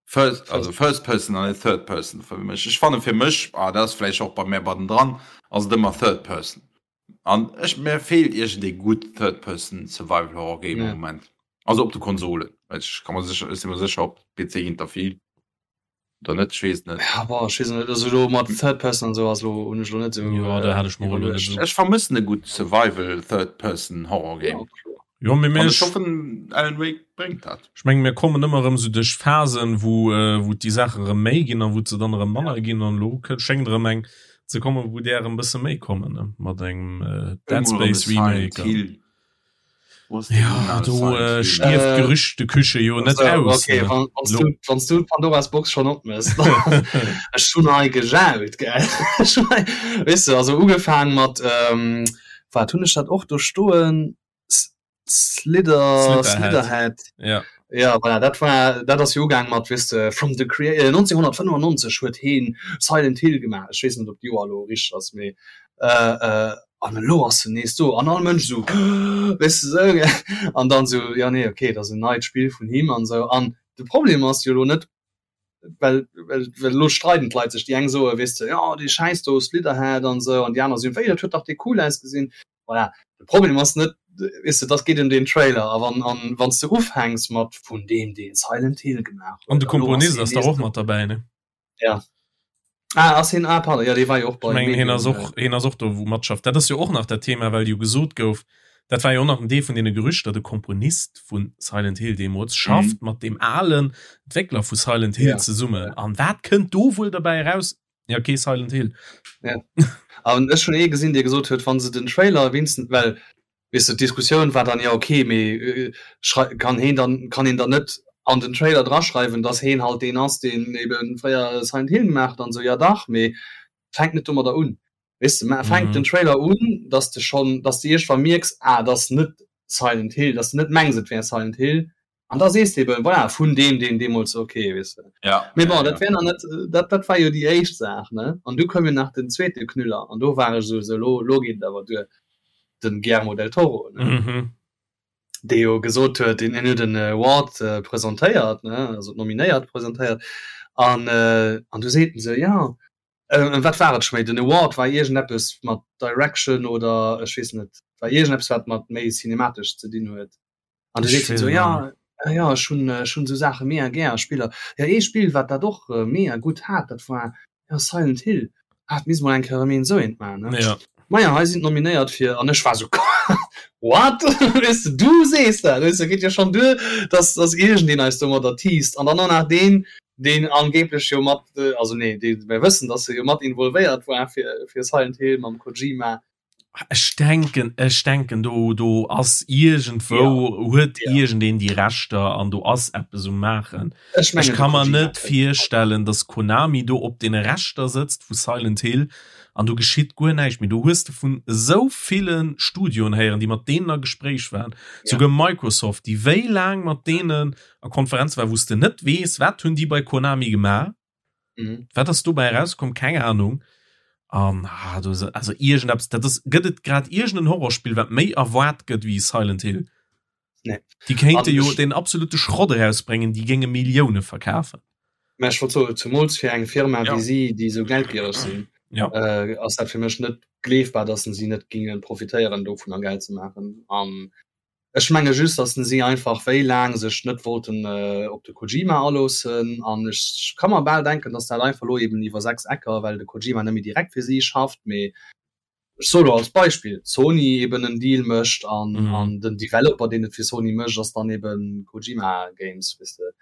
First, also First Person an Third Person fir mech. Ech fanne fir mech ah, dat ass vläicht och bei mär bei den dran ass et ëmmer Third Person. An ech mär feelt iergend ee gutt Third Person Survival Horror Game am ja. Moment. Also op de Konsolen. Ech kann mer sécher, ech si mer sécher op PC ginn der vill. Oder net? Ech weess et net. Ja, boah, ech weess et net. Also elo mat Third Person an esou ass elo, hunn ech elo net esou. Jo, da hat ech mer elo net esou. Ech vermëssen e gutt Survival Third Person Horror Game. Jo, mee mir. An ech hoffen Alan Wake bréngt dat. Ech mengen mir kommen ëmmer erëm esou duerch Phasen, wou wou déi Saache erëm méi ginn a wou se dann erëm manner ginn an elo schéngt erëm eng ze kommen, wou där erëm bësse méi kommen, ne, mat engem Dead Space Remake. Ja, do äh, stierft äh, Gerüchteküche jo net aus. Okay, wann, wann du, wann du Pandoras Box schon opmëss. Ech hun hei gejaut, gell. Weess du, also ugefaang mat ähm, wat hunn ech dat och do stoen? Slither, Slitherhead. Ja. Ja, voilà, dat war dat ass jo ugaang mat weess de from the crea äh, 1995 huet heen Silent Hill gemaach. Ech weess net op d'Joer elo richteg ass, mee äh, äh, an elo ass en nees do an all Mënsch esou weess de esou gell an dann esou ja nee okay dat ass en neit Spill vun him an esou an de Problem ass jo elo net well well well elo streiden d'Leit sech déi eng soe weess de jo dee Schäiss do Slitherhead an esou an déi aner soen wéi dat huet dach dee cool ausgesinn voilà de Problem ass net weess de dat geet ëm deen Trailer a wann an wann s de ufänks mat vun deem dee Silent Hill gemaach huet an de Komponist ass dach och mat derbäi ne? Ja. Ah, ass hien, ah, pardon, ja, dee war jo och bei. Ech mengen, hien ass och, hien ass och do, wou matschafft. Dat ass jo och nach dat Thema, well jo gesot gouf, dat war jo och nach en Deel vun deene Gerüchter, de Komponist vu Silent Hill deemools schafft mhm. mat deem alen Entwéckler vu Silent Hill ja. zesummen. An wat kënnt do wuel derbäi eraus? Ja, okay, Silent Hill. Ja. An ech hunn ee gesinn, dee gesot huet, wann se den Trailer wenigstens, well Weess de, d'Diskussioun war dann, jo okay, mee kann heen dann, kann een dann net an den Trailer draschreiwen, dass heen halt deen ass, deen ebe fréier Silent Hill gemaach huet an esou. Jo dach, mee fänk net domadder un. Weess de, mä fänk den Trailer un, dass de schonn, dass de iergendwann mierks, ah, et ass net Silent Hill, dass de net mengs, et wär Silent Hill, An da sees de eben, voilà, vun deem, deen deemools, okay, weess de. Ja. Mee bon, dat wär nach net, dat, dat war jo déi éischt Saach, ne? An du koum jo nach den zweete Knüller, an do war ech esou, sou, lo, lo geet et awer duer, den Guillermo del Toro, ne? Mhm. Dee jo gesot huet, deen, hien huet en Award presentéiert, ne, also d'Nominéiert presentéiert, an, an du seet en esou, jo, wat war et scho méi, den Award war iergendeppes mat Direction oder ech weess net, war iergendeppes, wat mat méi cinematesch ze dinn huet. An du seet hien esou, ja, ja, ech hunn, ech hunn esou Saache mega gär, Spiller. Ja, ee Spill, wat dat och mega gutt hat, dat war ja Silent Hill. Ah, dat misst mol eng Kéier erëm een esou eent maachen, ne? Ja. Maja, hei sinn d'Nominéiert fir, an ech war esou, What? Weess de, du sees dat, weess de, geet jo schonn duer, dass, dass iergendeen eis domadder teast an dann och nach deen. Deen angeblech jo mat, also nee, dee mir wëssen, dass e jo mat involvéiert war fir, fir Silent Hill mam Kojima. Ech denken, ech denken do, do ass iergendwou, ja. huet ja. iergendeen déi Rechter an do ass eppes um Maachen. Ech, mengen, ech kann mer net virstellen, dass Konami do op deene Rechter sëtzt vu Silent Hill an do geschitt guer näischt méi. Do hues de vun esou ville Studioen héieren, déi mat deenen a Gespréich waren, ja. souguer Microsoft, déi wéi laang mat deenen a Konferenz war, wou s de net weess, wat hunn déi bei Konami gemaach. Mhm. Wat ass dobäi rauskomm? Keng Ahnung. An ah, do, also irgendeppes, dat ass, gëtt et grad irgenden Horrorspill, wat méi erwaart gëtt wéi Silent Hill? Nee. Déi kéinte jo den absolute Schrott erausbréngen, déi géinge Millioune verkafen. Mä ech wollt soen, zumools fir eng Firma ja. wéi si, déi esou geldgiereg sinn, ja. äh, ass dat fir mech net gleefbar, dass si net gingen profitéieren dovun a Geld ze maachen. An Ech menge just, datt si einfach wéi laang sech net wollten op de Kojima aloossen. An ech ka mer bal denken, datt dat einfach elo eben iwwer 6 Ecker, well de Kojima net méi direkt fir si schafft, mee ech soe lo als Beispill, Sony eben en Deal mécht an an den Developer, deen et fir Sony mécht, ass dann eben Kojima Games, weess de.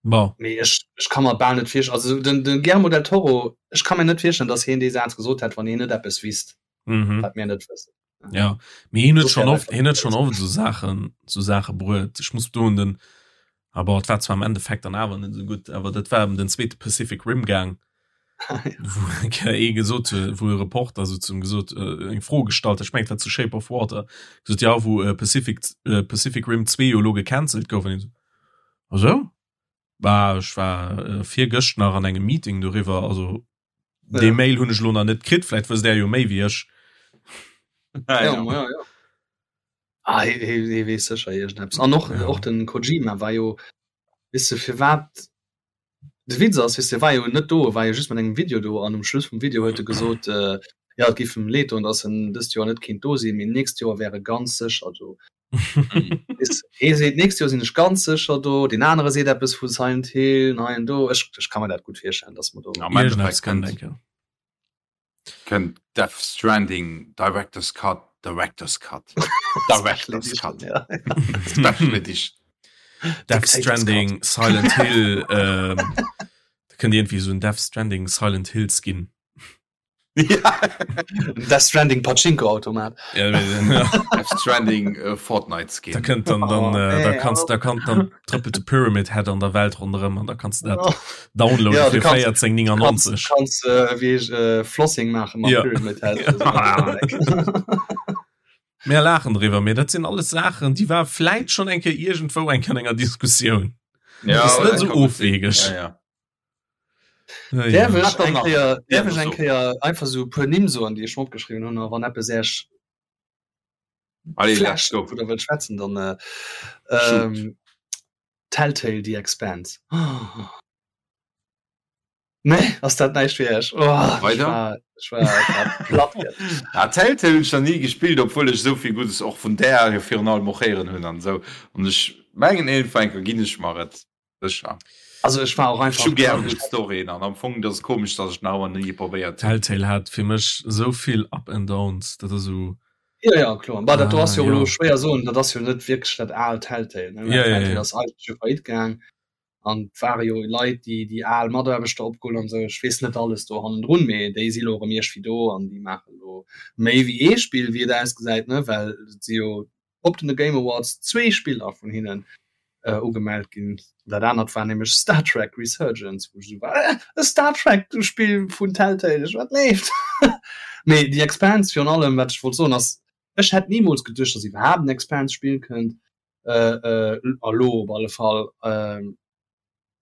Bon. Mee ech ech ka mer bal net virstellen, also den de Guillermo del Toro, ech ka mir net virstellen, datt hien dee Saz gesot hätt, wann hien net eppes wisst. Mhm. Wat mir net wëssen. Ja, mee hien huet schon oft, hien huet schon oft so Saachen, so Saache bruet. Ech muss do un den, aber et war zwar am Endeffekt dann awer net so gutt, awer dat war ëm den zweete Pacific Rim gaang, wou eng Kéier ee gesot huet, wou e Reporter sou zum gesot, äh, eng Fro gestallt, ech mengen et war zu Shape of Water, gesot, ja wou äh, Pacific, äh, Pacific Rim 2 jo elo gecancelt gouf, an hien sou, ach sou? Bah, ech war äh, virgëscht nach an engem Meeting doriwwer, also Dee ja. Mail hunn ech lo nach net kritt, vläit wësst der jo méi wéi ech. Ja, ja. ja, ja. Ah, hie, hie, hie weess sécher iergendeppes. An och, ja. och den Kojima war jo, weess de, firwat de Witz ass, weess de, war jo net do, war jo just mat engem Video do an um Schluss vum Video huet e gesot, äh, ja, et géif em leed doen, datt en dëst Joer net kéint do sinn, mee nächst Joer wär e ganz sécher do. Hee seet nächst Joer sinn ech ganz sécher do, deen anere seet eppes vu Silent Hill hei an do. Ech, ech ka mer dat gutt virstellen, datt mer do. Am Endeffekt kënnt, kënnt Death Stranding Director's Cut, Director's Cut, Director's Cut, ja. Special Edition. Death Stranding, Silent Hill, ähm, da kënnt iergendwéi esou en Death Stranding Silent Hill Skin. Ja. Death Stranding Pachinko-Automat. Ja, ja. Death Stranding äh, Fortnite Skin. Da könnt dann, dann, oh, äh, da kannst, da kann dann trëppelt de Pyramid Head an der Welt ronderëm an da kannst du dat oh. downloaden ja, fir 14,99. Kannst, kannst äh, wie ich, äh, Flossing machen mat ja. Pyramid Head. Mir laachen driwwer, mee dat sinn alles Saachen, déi war vläit schon eng Kéier iergendwou eng Kéier an enger Diskussioun. Ja, das ist net so ofwegeg. Ja, ja. Däerf ech eng Kéier, däerf ech eng Kéier einfach sou e puer Nimm soen, déi ech mer opgeschriwwen hunn, a wann eppes Äech Allez, let's flasht go. wou Der wëllt schwätzen, dann Shoot. ähm, Telltale The Expanse. Oh. Nee, ass dat näischt fir Iech? Oh, ech Weider? war, ech war, ech war platt gëschter. Ah, Telltale hunn ech nach ni gespillt, obwuel ech esou vill Guddes och vun där jo virun allem och héieren hunn an esou. An ech mengen iergendwann eng Kéier ginn ech mer et. Sécher. Also ech war och Ech einfach hu gär gutt Storyen an am Fong dat ass komesch, datt ech nach ëmmer ni probéiert hunn. Telltale hat fir mech esou vill Up and Downs, dat ass esou. Jo jo kloer, bah dat do Ah ass jo elo jo. schwéier soen, dat ass jo net wierklech dat aalt Telltale ne, Ja ja Telltale ja. ass eigentlech jo faillite gaang an et ware jo Leit déi déi al Mataarbechter opgeholl an esou, ech weess net alles do hannendrun, mee déi si lo erëm iergwéi do an déi maachen elo méi wéi ee Spill wéi et ausgesäit ne, well et si jo op den Game Awards zwee Spiller vun hinnen äh, ugemellt ginn. Dat anert war nämlech Star Trek Resurgence, wou ech esou war, äh, e Star Trek Spill vun Telltale, ech wat leeft. Mee The Expanse virun allem, wat ech wollt soen ass, ech hätt nimools geduecht, dass iwwerhaapt en Expanse Spill kënnt, äh, äh, elo op alle Fall. Äh,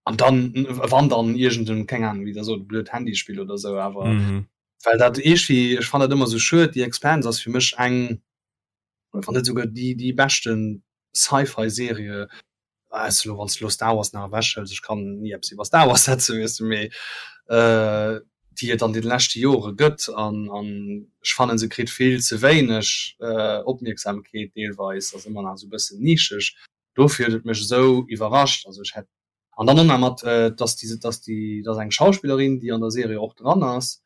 an dann wann dann irgend en, keng Ahnung, wéi der sot, blöd Handyspill oder sou, awer mhm. well dat iergendwéi, ech fannen dat ëmmer sou schued, The Expanse ass fir mech eng wann net souguer déi déi beschten Sci-Fi Serie weiss du, wann s du lo Star Wars nach ewech hëls, ech kann ni eppes iwwer Star Wars setzen, weess du, mee äh, déi et an den leschte Jore gëtt an an ech fannen se kritt vill ze wéineg äh, Opmierksamkeet deelweis, ass ëmmer nach esou e bëssen nischeg, dofir huet et mech esou iwwerrascht, also ech hätt an dann och nach mat äh, dass déi dass déi dass eng Schauspillerin déi an der Serie och dran ass,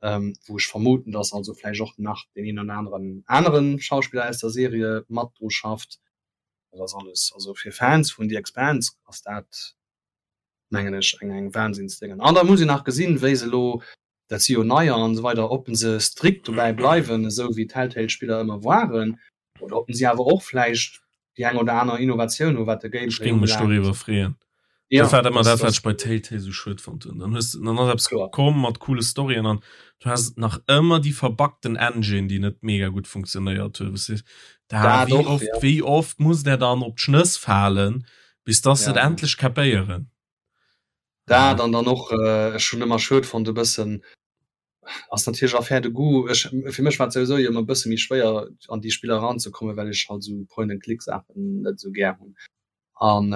ähm, wou ech vermuten, dass also vläicht och nach deen een oder aneren aneren Schauspiller aus der Serie mat dru schafft. Dat ass alles, also fir Fans vun The Expanse ass dat mengen ech eng eng Wahnsinnsdéngen. An da muss een nach gesinn, wéi se elo, dat si jo neier an esou weider, ob se strikt dobäi bleiwen, esou wéi d'Telltale-Spiller ëmmer waren, oder ob si awer och vläicht déi eng oder aner Innovatioun hu wat de Ech Gameplay géing mech ubelaangt. doriwwer freeën. Ja, Dat war ëmmer dat, wat ech bei Telltale sou schued fonnt hunn. Dann hues dann ass eppes Kloer. komm mat coole Storyen an du has nach ëmmer déi verbuggten Engine, déi net mega gutt funktionéiert huet. Wou s de da Dat wéi och, oft ja. wéi oft muss der dann op d'Schnëss falen, bis dass se et Ja. endlech kapéieren. Dat an dann och, ech hunn ëmmer schued fonnt e bëssen, ass natierlech Affaire de goût, ech fir mech war et souwisou jo ëmmer e bësse méi schwéier an déi Spiller eranzekommen, well ech halt esou Point and Click Saachen net esou gär hunn. An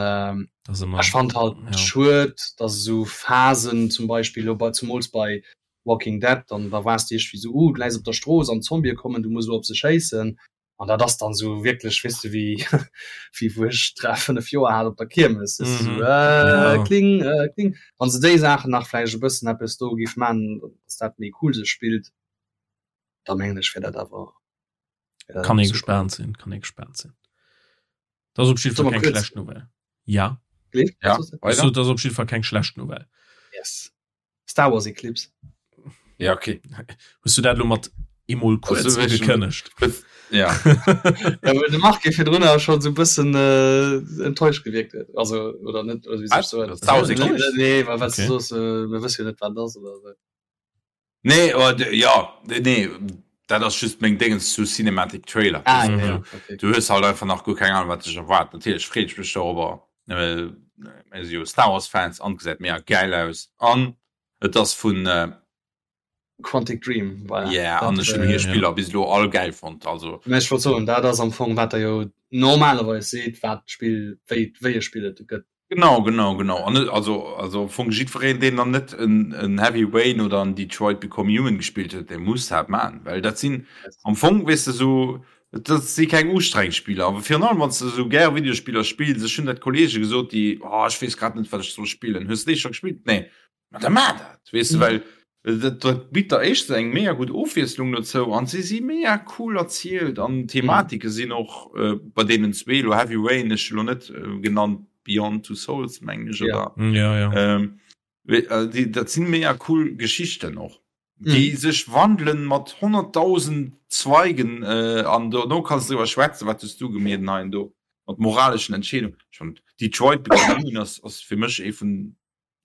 ech fand halt ja. schued, dass esou Phasen zum Beispill lo bei zumools bei Walking Dead, dann da waars de iergendwéi esou, uh, du läis op der Strooss an d'Zombië kommen, du muss elo op se schéissen. An dat ass dann esou wierklech, weess de, wéi wéi wou ech 3, 5 Joer hat op der Kiermes, weess de, esou äh, ja. kling, äh, kling. Wann se déi Saachen nach vläicht e bëssen eppes do géif man, dass dat méi cool sech spillt, da mengen ech wär dat awer wär dat Kann ee gespaant sinn, kann ee gespaant sinn. Dat ass op jidde Fall keng schlecht Nouvelle. Ja. Ja, so, dat ass op jidde Fall keng schlecht Nouvelle. Yes. Star Wars Eclipse. Ja, okay. Hues du dat lo mat emol kuerz ugekënnegt? Ja. ja well de Marc virdrun schon so bëssen äh, enttäuscht gewirkt huet. Also oder net oder wie sech so. Star Wars Eclipse? Nee, well wat okay. du soos, äh, mir wësse jo net wat ass oder so. Nee, oh, ja, nee, dat ass just meng Dingens zu Cinematic Trailer. Ah, ja, ja, okay. Du hues halt einfach nach guer keng Ahnung, wat dech erwaart. Natierlech freet ech mech dorobber. Äh, mir si jo Star Wars Fans an gesäit mega geil aus. An et ass vun äh, Quantic Dream, voilà. Yeah, an ech hunn hir Spiller bis elo all geil fonnt. Also. Mä ech wollt soen, dat ass am Fong wat der jo normalerweis seet, wat d'Spill, wéi, wéi e Spill et gëtt. Genau, genau, genau. An also, also am Fong jiddwereen, deen dann net en, en Heavy Rain oder en Detroit Become Human gespillt huet, dee muss dat man, well dat sinn am Fong, weess de, sou, dat si keng ustrengend Spiller. Awer virun allem, wann s de sou gär Videospiller spills, ech hunn dat Kollege gesot, déi, oh, ech weess grad net, wat ech soll spillen, hues de dee scho gespillt? Nee. Ma da mar dat, weess de, well dat, dat bitt der éischtens eng mega gutt Ofwiesslung dozou an se si mega cool erzielt an d'Thematike sinn och äh, bei deenen zwee lo Heavy Rain ech lo net äh, genannt Beyond Two Souls mengen ech Ja. oder Ja, ja. ähm, we- äh, déi, dat sinn mega cool Geschichten och déi sech wandelen mat 100.000 Zweigen äh, an dono kanns du driwwer schwätzen, wat hues du gemeet an hei an do mat moraleschen Entscheedungen. Ech fand Detroit Become Human ass, ass fir mech ee vun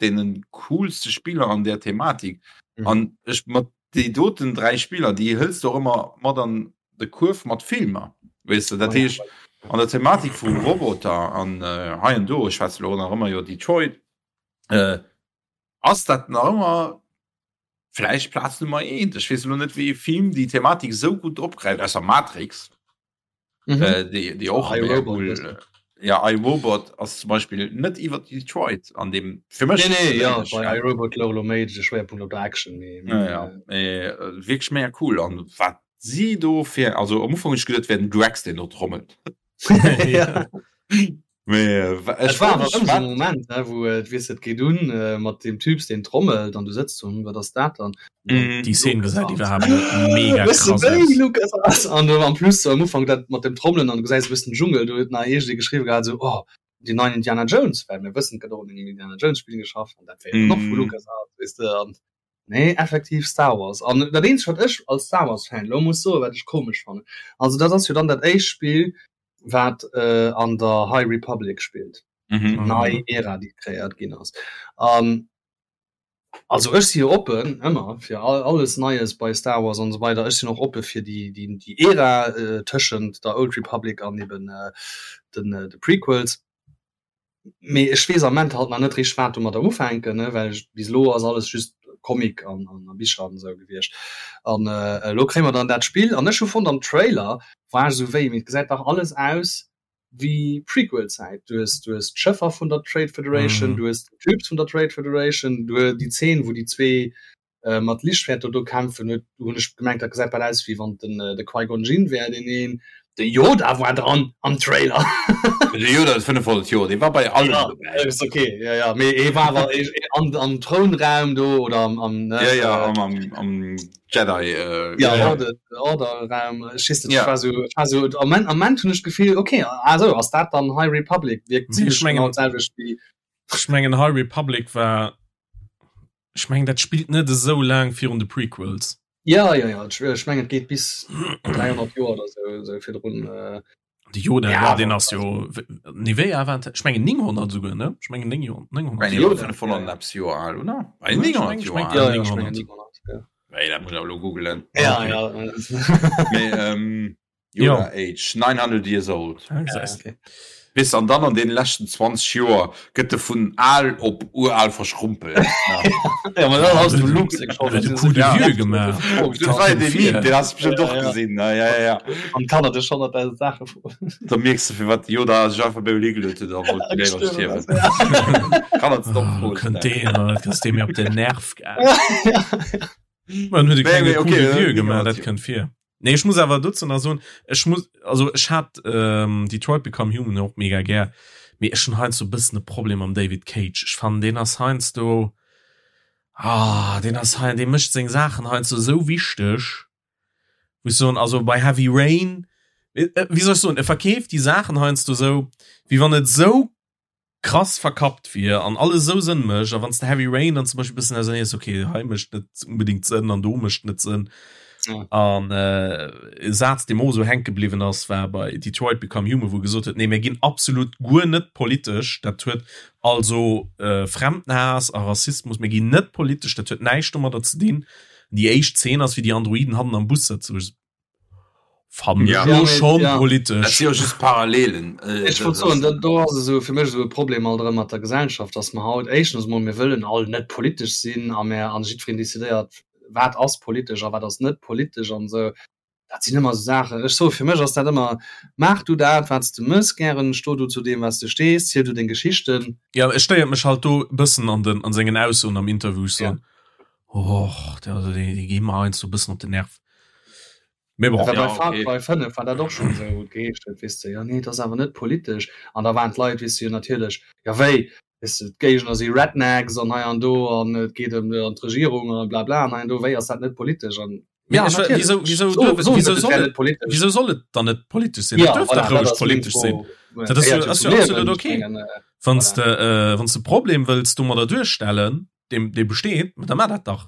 deenen coolste Spiller an der Thematik. Mhm. An ech mat déi doten 3 Spiller, déi hëls du och ëmmer mat an de Kuerf mat Filmer. Weess de, dat oh, heescht an der Thematik vu Roboter an äh, hei an do, ech schwätze lo nach ëmmer iwwer Detroit, äh, ass dat nach ëmmer vläicht Plaz Nummer 1. Ech weess lo net, wéi ee Film déi Thematik esou gutt opgräift, ausser Matrix. Mhm. Äh, déi, déi och I, Robot, cool, äh, ja I Robot ass zum Beispill net iwwer Detroit an dem fir mech nee, nee, ja, bei I Robot louch méi de Schwerpunkt op der Action mee, ja, ja. Äh, wierklech mega cool an wat si do fir also am Ufank hunn ech geduet wär den Drax deen do trommelt ja. Mee äh, war awer ëmmer so Moment ne, wou äh, weess et geet un äh, mat dem Typs deen trommelt an du sëtzt so, hm, wat ass dat dann? Mm. Déi Szene gesäit iwwerhaapt net mega krass aus. Lucas ass an du am plus so am Ufank dat mat dem Trommelen an du gesäis e bëssen Dschungel, do huet nach iergendee geschriwwe gehat so oh déi neien Indiana Jones, well mir wëssen et gëtt och un engem Indiana Jones Spill geschafft an dat wär jo dann och vu mm. Lucas Arts, weess de an nee effektiv Star Wars an dat eenzegt wat ech als Star Wars Fan lo muss soen, wat ech komesch fannen, also dat ass jo dann dat éischt Spill wat äh, an der High Republic spillt. Mhm. Nei Ära, déi kreéiert ginn ass. An also ech si jo oppen ëmmer fir all, alles Neies bei Star Wars an esou weider. Ech sinn och oppe fir déi, déi, déi Ära äh, tëschent der Old Republic an eben äh, den, äh, de Prequels. Mee ech weess am Ament halt nach net richteg wat domadder ufänken, ne, well ech bis elo ass alles just Comic an an a Bicher an esou gewiescht. An elo kréie mer dann dat Spill an ech hu fonnt am Trailer war ech esou wéi, mee et gesäit dach alles aus wéi Prequel-Zäit. Du hues du hues d'Schëffer vun der Trade Federation, du hues d'Typs vun der Trade Federation, du hues déi Zeen wou déi zwee mat Lichtschwerter do kämpfen, huet hunn ech gemengt dat gesäit bal aus wéi wann den de Qui-Gon Jinn wär deen een. De Yoda war dran am Trailer. De Yoda ass 500 Joer, dee war bei allem ja, dobäi. Ist okay, ja, ja. Mee e war awer an, am Throunraum do oder am, am ne, ja, ja, am, am, am Jedi äh, ja, ja. Order, Orderraum. Ech weess net, ja. war so, war so, am Moment, am Moment hunn ech d'Gefill, okay, also ass dat dann High Republic, wierkt ziemlech genau d'selwecht wéi. Ech mengen High Republic war Ech mengen dat spillt net esou laang virun de Prequels. Ja ja ja ech mengen et geet bis 300 Joer oder sou sou virdrun. Äh, De Yoda ja, ja den ass jo nee wéi al war ech mengen 900 souguer ne ech mengen 900 Joer 500 eppes Joer al oder? 900 Joer al. Ja, 900 ja. Wéi dat muss ech awer elo googelen. Ja ja. Mee ähm, Yoda Age, 900 years old. Ja, gesäis de. Weess an dann an deene leschten 20 Joer gëtt e vun al op ural verschrumpelt. Ja, ma dann ass de Luke seng Schold. Huet e Coup de vieux gemaach. Dat war jo dee Meme, deen has de bestëmmt och gesinn, ne? Ja, ja, ja. An d'Kanner dech 100.000 Saache froen. Da mierks de firwat de Yoda sech einfach bei higeluet huet a wollt léiwer stierwen. Kanner ze domm Froen Kënnt deen, dat ass dee mir op den Nerv gaangen. Man huet e klenge Coup de vieux gemaach, dat kënnt vir. Nee, ech muss awer dozou nach soen, ech muss, also ech hat ähm, Detroit Become Human och mega gär, mee ech hunn heiansdo e bëssen e Problem mam David Cage. Ech fannen, deen ass heiansdo, ah, deen ass hei, dee mécht seng Saachen heiansdo esou wichteg, wou ech soen, also bei Heavy Rain, äh, wéi soll ech soen, e verkeeft déi Saachen heiansdo esou, wéi wann et esou krass verkappt wier an alles esou Sënn mécht a wann s de Heavy Rain dann zum Beispill bëssen ausernees okay hei mécht net unbedingt Sënn an do mécht net Sënn ja. an äh, e Saz dee mer och esou hänke bliwwen ass war bei Detroit Become Human wou gesot huet nee mir ginn absolut guer net politesch dat huet also äh, Fremdenhaass a Rassismus mir ginn net politesch dat huet näischt domadder ze dinn déi éischt Zeen ass wéi déi Androiden hannen am Bus sëtzen Fannen ja. ech schon ja. politesch. Dat si jo just Parallelen. Äh, ech wollt soen, do, do ass esou fir mech esou e Problem alt erëm mat der Gesellschaft, dass mer haut éischtens emol mir wëllen all net politesch sinn a mer an jiddwereen decidéiert, wat ass politesch a wat ass net politesch an esou. Dat sinn ëmmer esou Saachen. Ech soe fir mech ass dat ëmmer, maach du dat, wat s de mëss gären, sto du zu deem, wat s de stees, ziel du deng Geschichten. Ja, et stéiert mech halt do e bëssen an den, an sengen Aussoen am Interview, ech soen, Och, der, also déi, déi gi mer heiansdo e bëssen op den Nerv. Mee bon. Ja, Ja, bei Far okay. Cry 5 war dat och schonn esou, wou et geheescht huet, weess de, jo nee, et ass awer net politesch. An da waren d'Leit, weess de, jo natierlech, jo wéi, weess de, d'Géigner si Rednecks an hei an do an et geet ëm an d'Regierung an blabla an hei an do, wéi ass dat net politesch? An Mee ja, ech, natierlech, wieso, wieso, so, duerf, soen wieso net, et soll wär et, net politesch. wieso soll et dann net politesch sinn? Et Ja, duerf voilà, dach dat roueg ass meng politesch sinn. Fro. Dat ass jo, Gehéiert jo ass zum jo Liewen, absolut ech okay. mengen, äh, Wann s voilà. de, äh, wann s de Problem wëlls domadder duerstellen, deem, dee besteet, da maach dat dach.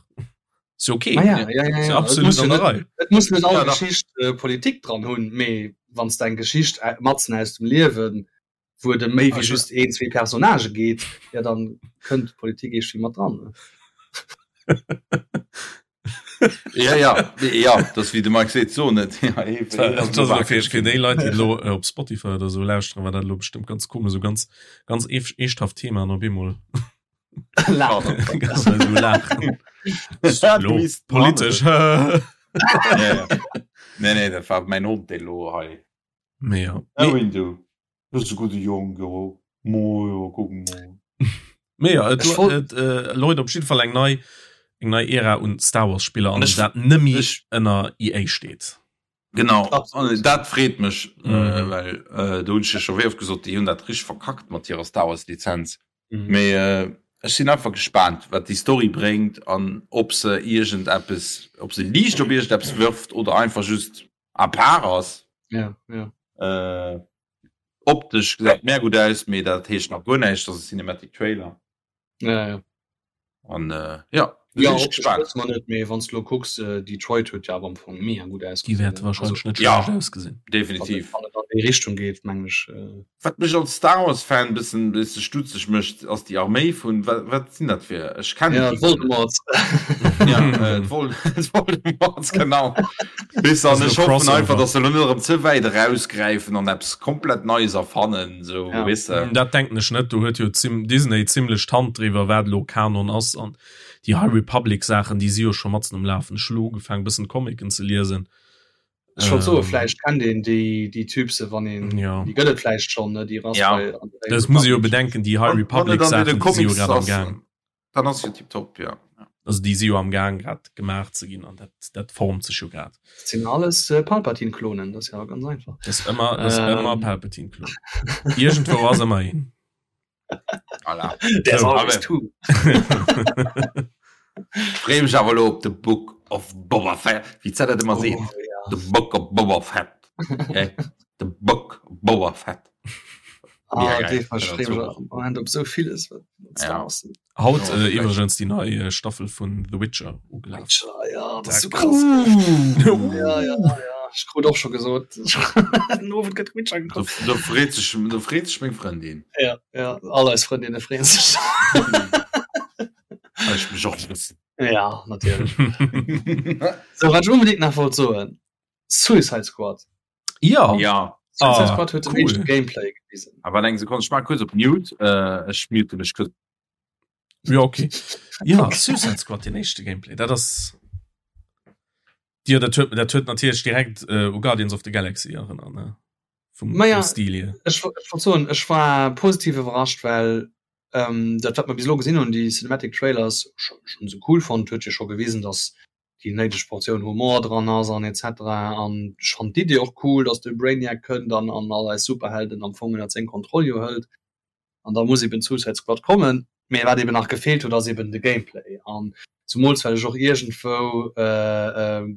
Ist jo okay. Ah ja, ja, ja, Ist jo ja. Et absolut muss jo an der net, Rei. et muss net all Ja, dach. Geschicht äh, Politik dran hunn, mee wann s de eng Geschicht äh, matzen aus dem Liewen, wou et ëm méi wéi Also, just een, zwee Personnagë geet, ja dann kënnt d'Politik iergendwéi mat dran. Ne? Ja, ja, ja, dat wéi de Mike seet, so net. Ja, ee, Das war, een ass das elo ass fir, wakereg fir ginn. déi Leit, déi elo äh, op Spotify oder so lauschteren, war dat elo bestëmmt ganz komesch, so ganz, ganz eesch- eeschthaft Thema an op eemol Laachen. ganz so laachen. Lo, politesch. Ja, ja. Nee, nee, dat war mäin Hond, dee lo hei. Mee ja. Erwin, du bist e gudde Jong, jo. Mo, jo, kuck mol. Mee ja, et, Ech wollt- et äh, läut op jidde Fall eng nei, eng nei Ära un Star Wars Spiller an An ech- dat nëmmi ech- ënner EA steet. Genau, Absolut. an dat freet mech, Mhm. äh, well äh, do hunn ech jo scho wéi oft gesot, déi hunn dat richteg verkackt mat hirer Star Wars Lizenz. Mhm. Mee äh, ech sinn einfach gespaant, wat déi Story bréngt an ob se iergendeppes, ob se Liicht op iergendeppes wërft oder einfach just à part ass. Ja, ja. Äh, optesch gesäit mär gutt aus, mee dat heescht nach guer näischt, dat ass e Cinematic Trailer. Ja, ja. An äh, ja, do Ja, sinn ech optesch gespaant. wësse mer net, mee wann s du elo kucks, äh, Detroit huet jo awer am Fong mega gutt Déi ausgesinn. wäerte Also, wahrscheinlech net Ja. schlecht ausgesinn. wann et, Definitiv. wann et an déi Richtung geet, mengen ech. Äh, Wat mech als Star Wars Fan bëssen bësse stutzeg mécht, ass déi Arméi vun, wat, wat sinn dat fir, ech kennen ja, déi guer net. Voldemort. Ja, äh, d'Vol d'Voldemorts, genau. Weess Das an ist ech e hoffen einfach, Crossover. dass se elo net erëm ze wäit erausgräifen an eppes komplett Neies erfannen, sou, Ja. weess de. Dat denken ech net. Do huet jo zim Disney zimlech d'Hand driwwer, wat elo Kanon ass an déi High Republic Saachen, déi si jo scho matzen um Lafen. Ech hu lo ugefaangen, bëssen Comicen ze liesen. Ech wollt soen, Ähm, vläicht kennt een déi, déi Typse, wann een, ja. déi gëtt et vläicht schonn, ne, déi Rass Ja. bei an der Das muss ee jo Republic. bedenken, déi High Wann, wann Republic et an deene Saachen, déi si jo Comics grad am ass, Gaang. dann ass jo tiptop, ja. Also déi si jo am Gaang grad gemaach ze ginn an dat, dat formt sech jo grad. Dat sinn alles äh, Palpatine-Klonen, dat ass ja ganz einfach. Dat ass ëmmer, dat ass ähm. ëmmer Palpatine-Klon. Iergendwou ass ëmmer een. Voilà. There's always two. Freeë mech awer elo op The Book of Boba Fett. Wéi d'Zell dat ëmmer seet. Oh, ja. The Book of Boba Fett. Okay? The Book of Boba Fett. Ah, dee verstreem ech am Moment op sou villes wat ja. Haut äh, iwwregens déi nei äh, Staffel vun The Witcher ugelaf. Witcher, ja, dat ass so krass. Ja, ja, ja. Ech krut och scho gesot den Owend gëtt Witcher gekuckt. Do freet sech, do freet sech meng Frëndin. Ja, ja, all eis Frëndinne freeën sech. Ech mech och e bëssen. Ja, natierlech. So, wat ech unbedingt nach wollt soen, Suicide Squad. Ja. Ja. Suicide ah, Squad huet cool. den Gameplay gewisen. Aber eng Sekunde, ich mach kurz op Mute. Äh, ech mute mech kurz. Ja, okay. Ja, okay. Suicide Squad, den éischte Gameplay. Dat ass. Ja, dat huet, dat huet natierlech direkt äh, u Guardians of the Galaxy erinnert, ne? Vum, ja, Stil hier. Ech, ech wollt soen, ech war positiv iwwerrascht, well ähm, dat wat mer bis elo gesinn hunn, déi Cinematic Trailers schon, schon sou cool fonnt, huet jo scho gewisen, dass déi néideg Portioun Humor dran ass an etc. An ech fannen d'Idee och cool, dass de Brainiac kënnt an an all eis Superhelden am Fong ënnert seng Kontroll jo hëlt. An da muss eben d'Suicide Squad kommen. Mee wat eben nach gefeelt huet, ass eben de Gameplay. An zumools well ech och iergendwou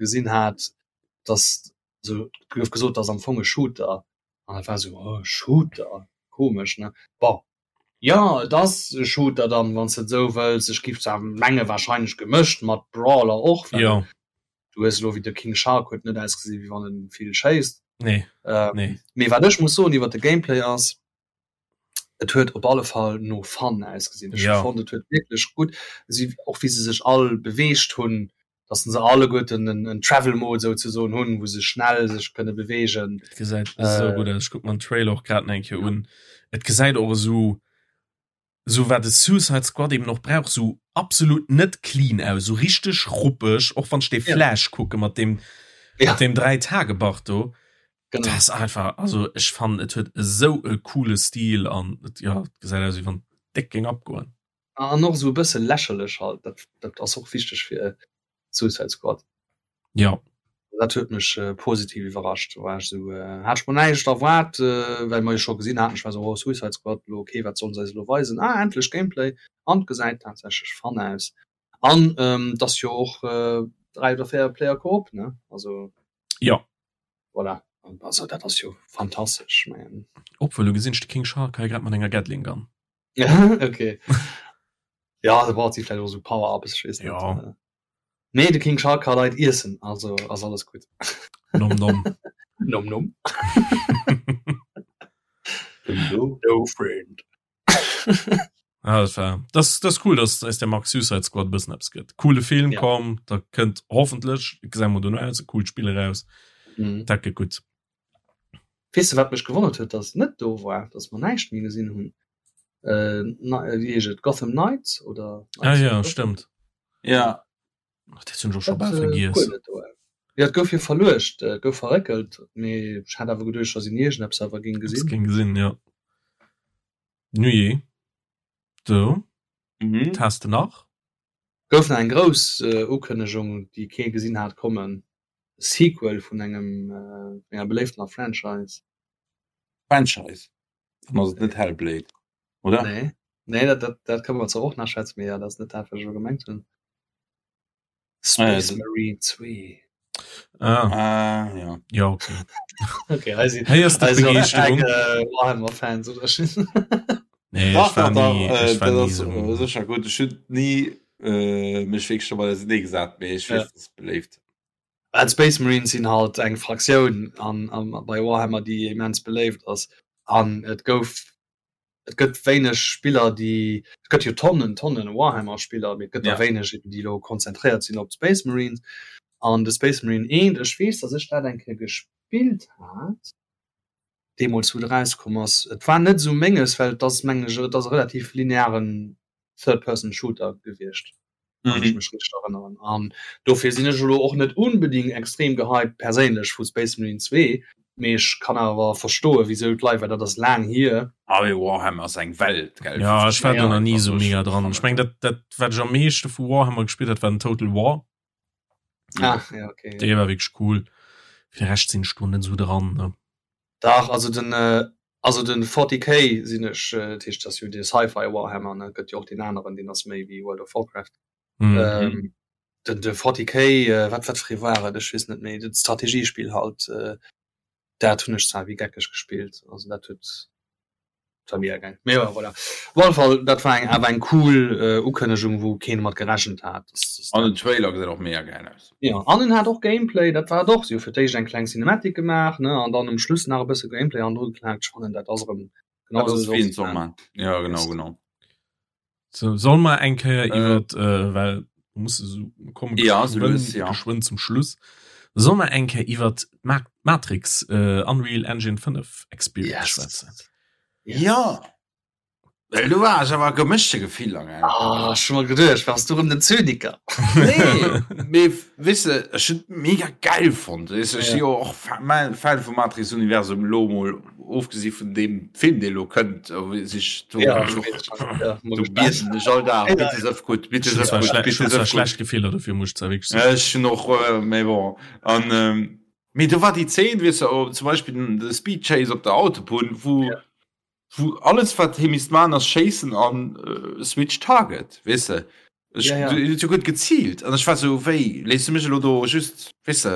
gesinn hat, dass, also et gouf gesot, et ass am Fong e Shooter. An dat war esou, oh, Shooter, komesch, ne? Bon, Jo, et ass e Shooter dann, wann s de et esou wëlls. Ech giff zwar menge wahrscheinlech gemëscht mat Brawler och, well Jo. du hues elo wéi de King Shark huet net ausgesi wéi wann en vill schéisst. Nee, nee. Mee wat ech muss soen iwwer de Gameplay ass, et huet op alle Fall no Fun ausgesinn. Ech hu fonnt et huet wierklech gutt, si och wéi se sech all beweegt hunn, dass se alleguerten en, en Travel Mode souzesoen hunn, wou se schnell sech kënne beweegen. Et gesäit äh, esou gutt aus. Ech kuck mer den Trailer och grad nach eng Kéier un. Et gesäit och esou, esou wat de Suicide Squad eben och brauch, esou absolut net clean aus, esou richteg ruppeg, och wann ech dee Flash kucke mat deem, mat deem Dräitagebart do. Genau. Dat ass einfach, also ech fannen et huet esou e coole Stil an et, ja, et gesäit aus wéi wann et déck géing abgoen. An och esou e bësse lächerlech halt, dat, dat ass och wichteg fir Suicide Squad. Ja. Dat huet mech äh, positiv iwwerrascht. Do war ech esou, äh, hat ech mer näischt erwaart, äh, well mer jo scho gesinn haten, ech war esou, oh Suicide Squad, lo okay, wat sollen se eis elo weisen? Ah, endlech Gameplay! An et gesäit tatsächlech fun aus. An ähm, et ass jo och äh, 3 oder 4 Player Koop, ne? Also. Ja. Voilà. Also dat ass jo fantastesch, ech mengen. Obwuel, lo gesinn ech de King Shark hei grad mat enger Gatling Gun. okay. Ja, da braucht sie vielleicht auch so Power-Ups, ich weiß nicht. Ja. Nee, de King Shark kann Leit iessen, also ass alles gut. Nom nom. Nom nom. No friend. Ah, das war, das, das ist cool, dass eis der Max Suicide Squad bëssen eppes gëtt. Coole Film Ja. komm, da kënnt hoffentlech, gesäit mer dono aus, e coolt Spill eraus. Mhm. Dat gëtt gutt. Weess de wat mech gewonnert huet, dass net do war, dass mer näischt méi gesinn hunn? Äh, wéi heescht et, Gotham Knights oder Ah ja, stëmmt. Ja. Ach, dat hunn ech och scho bal vergiess. Ja, et gouf jo verluecht, et gouf verréckelt, mee ech hat awer geduecht, dass een iergendeppes awer géing gesinn. Géing gesinn, ja. Nujee. Do. Mhm. Wat has de nach? Gouf nach eng grouss Ukënnegung, déi kee gesinn hat kommen, Sequel vun engem enger beléiftener Franchise. Franchise? Dann ass et net Hellblade, oder? Nee, nee, dat, dat, dat kënne mer zwar och nach schwätzen, mee ja, dat ass net dat, wat ech elo gemengt hunn. Space ah, ja, Marine 2. Ah. Ah, ja. Ja, okay. Okay, hei si, Hei ass hei si Begeeschterung. Äh, Warhammer-Fans, oder? Nee, Dach, ech war dach, dach, nie, äh, ech war dat nie ass so. äh, sécher gutt. Ech hunn ni äh, mech wierklech domat auserneegesat, mee ech Ja. weess, dass et beléift. Well d'Space Marines sinn halt eng Fraktioun an, an, bei Warhammer, déi immens beléift ass. An et gouf, et gëtt wéineg Spiller, déi, et gëtt jo Tonnen, Tonnen Warhammer-Spiller, mee et gëtt der Ja. wéineg, eben, déi elo konzentréiert sinn op d'Space Marines. An de Space Marine 1, ech weess, dass ech dat eng Kéier gespillt hat, deemools wou et erauskomm ass. Et war net esou menges, well et ass, mengen ech, et ass e relativ linearen Third-Person-Shooter gewiescht, wann ech mech richteg erënneren. An dofir sinn ech elo och net unbedingt extrem gehypt perséinlech vu Space Marine 2. Mee ech kann awer verstoen, wisou d'Leit, well dat ass laang hier. Ah mee Warhammer ass eng Welt, gell? Ja, ech war do nach ni esou mega dran. Ech meng dat dat wat ech am meeschte vu Warhammer gespillt hat, war den Total War. Ah, ja, okay. Dee war wierklech cool. Fir de Rescht sinn ech do net esou dran, ne. Dach, also den also den 40K sinn ech, dat heescht dat ass jo dee Sci-Fi Warhammer, ne? Et gëtt jo och deen aneren, deen ass méi wéi World of Warcraft. Mhm. Ähm, den de 40K, äh, wat wat fir ee war et, ech weess net méi, dat Strategiespill halt, äh, dat hunn ech zwar wéi geckeg gespillt, also dat huet dat war mega geil. Mee jo, voilà. Op alle Fall, dat war eng awer eng cool äh, Ukënnegung, wou keen mat gerechent hat. Dass, dass An den Trailer gesäit och mega geil aus. Ja, an en hat och Gameplay, dat war et och. Si hu fir d'éischt eng kleng Cinematic gemaach, ne, an dann um Schluss nach e bësse Gameplay hannendru geklaakt. Ech fannen, dat ass erëm genau Dat esou ass wéi soll en et soll sinn. man. Ja, genau, genau. So, soll mer eng Kéier Äh. iwwer äh, well muss so kommen Ja, so lues, ja. geschwënn zum Schluss. Soll mer eng Kéier iwwer Ma Matrix äh, Unreal Engine 5 Experience Yes. schwätzen? Ja. Well du war ech awer gemëschte Gefiller gell? Ah, ech hu mer geduecht, wars du rëm den Zyniker? Nee, mee weess de, ech hunn et mega geil fonnt. Weess de, ech Ja. si jo och Fa Ma Fan vum Matrix-Universum, elo mol ofgesi vun deem Film, dee elo kënnt, sich do Ja, do bieden ech all Dag, bitte sëff gutt, bitte Ech hunn sëff zwar gutt, schle bitte ech hunn zwar sëff gutt. schlecht Gefiller dofir, muss ech zwar wierklech soen. Ech hunn och, mee bon. An mee do war déi Zeen, weess de, zum Beispill den de Speed Chase op der Autobunn, wou wou alles wat hie misst man ass schéissen an Switch Target, weess de. Ech Ja, ja. hien huet jo gutt geziilt an ech war sou, wéi léiss du mech elo do just, weess de.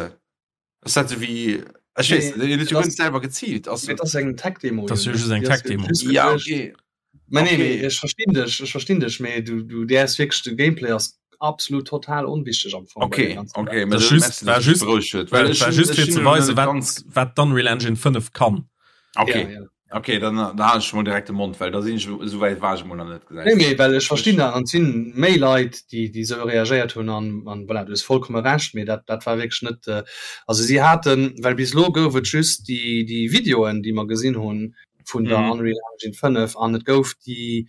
Ass dat sou wéi, ech weess net, hien huet jo guer net selwer geziilt. Ass Mee et ass eng Tech-Demo. Dat ass jo just eng Tech-Demo. Ja, okay. Mä nee, mee Okay. ech verstinn dech, ech verstinn dech, mee du, du däerfs wierklech, de Gameplay ass absolut total onwichteg am Fong bei Okay, där ganzer okay, Saach. mä Dat dat just, merci, war dass du mech just, berouegt huet, war, well ech war hunn just ech fir hunn ze elo weisen, net wat, ganz wat d'Unreal Engine 5 kann. Okay. Ja, ja. Okay, dann da halen ech mol direkt de Mond, well da sinn ech esou wäit war ech mol nach net Nee, gesäis. mee well ech verstinn dat an et sinn méi Leit, déi déi esou reagéiert hunn an an voilà, du hues vollkomme Recht, mee dat dat war wierklech net also si haten, well bis elo gouf et just déi déi Videoen, déi mer gesinn hunn vun der Mhm. Unreal Engine 5 an et gouf déi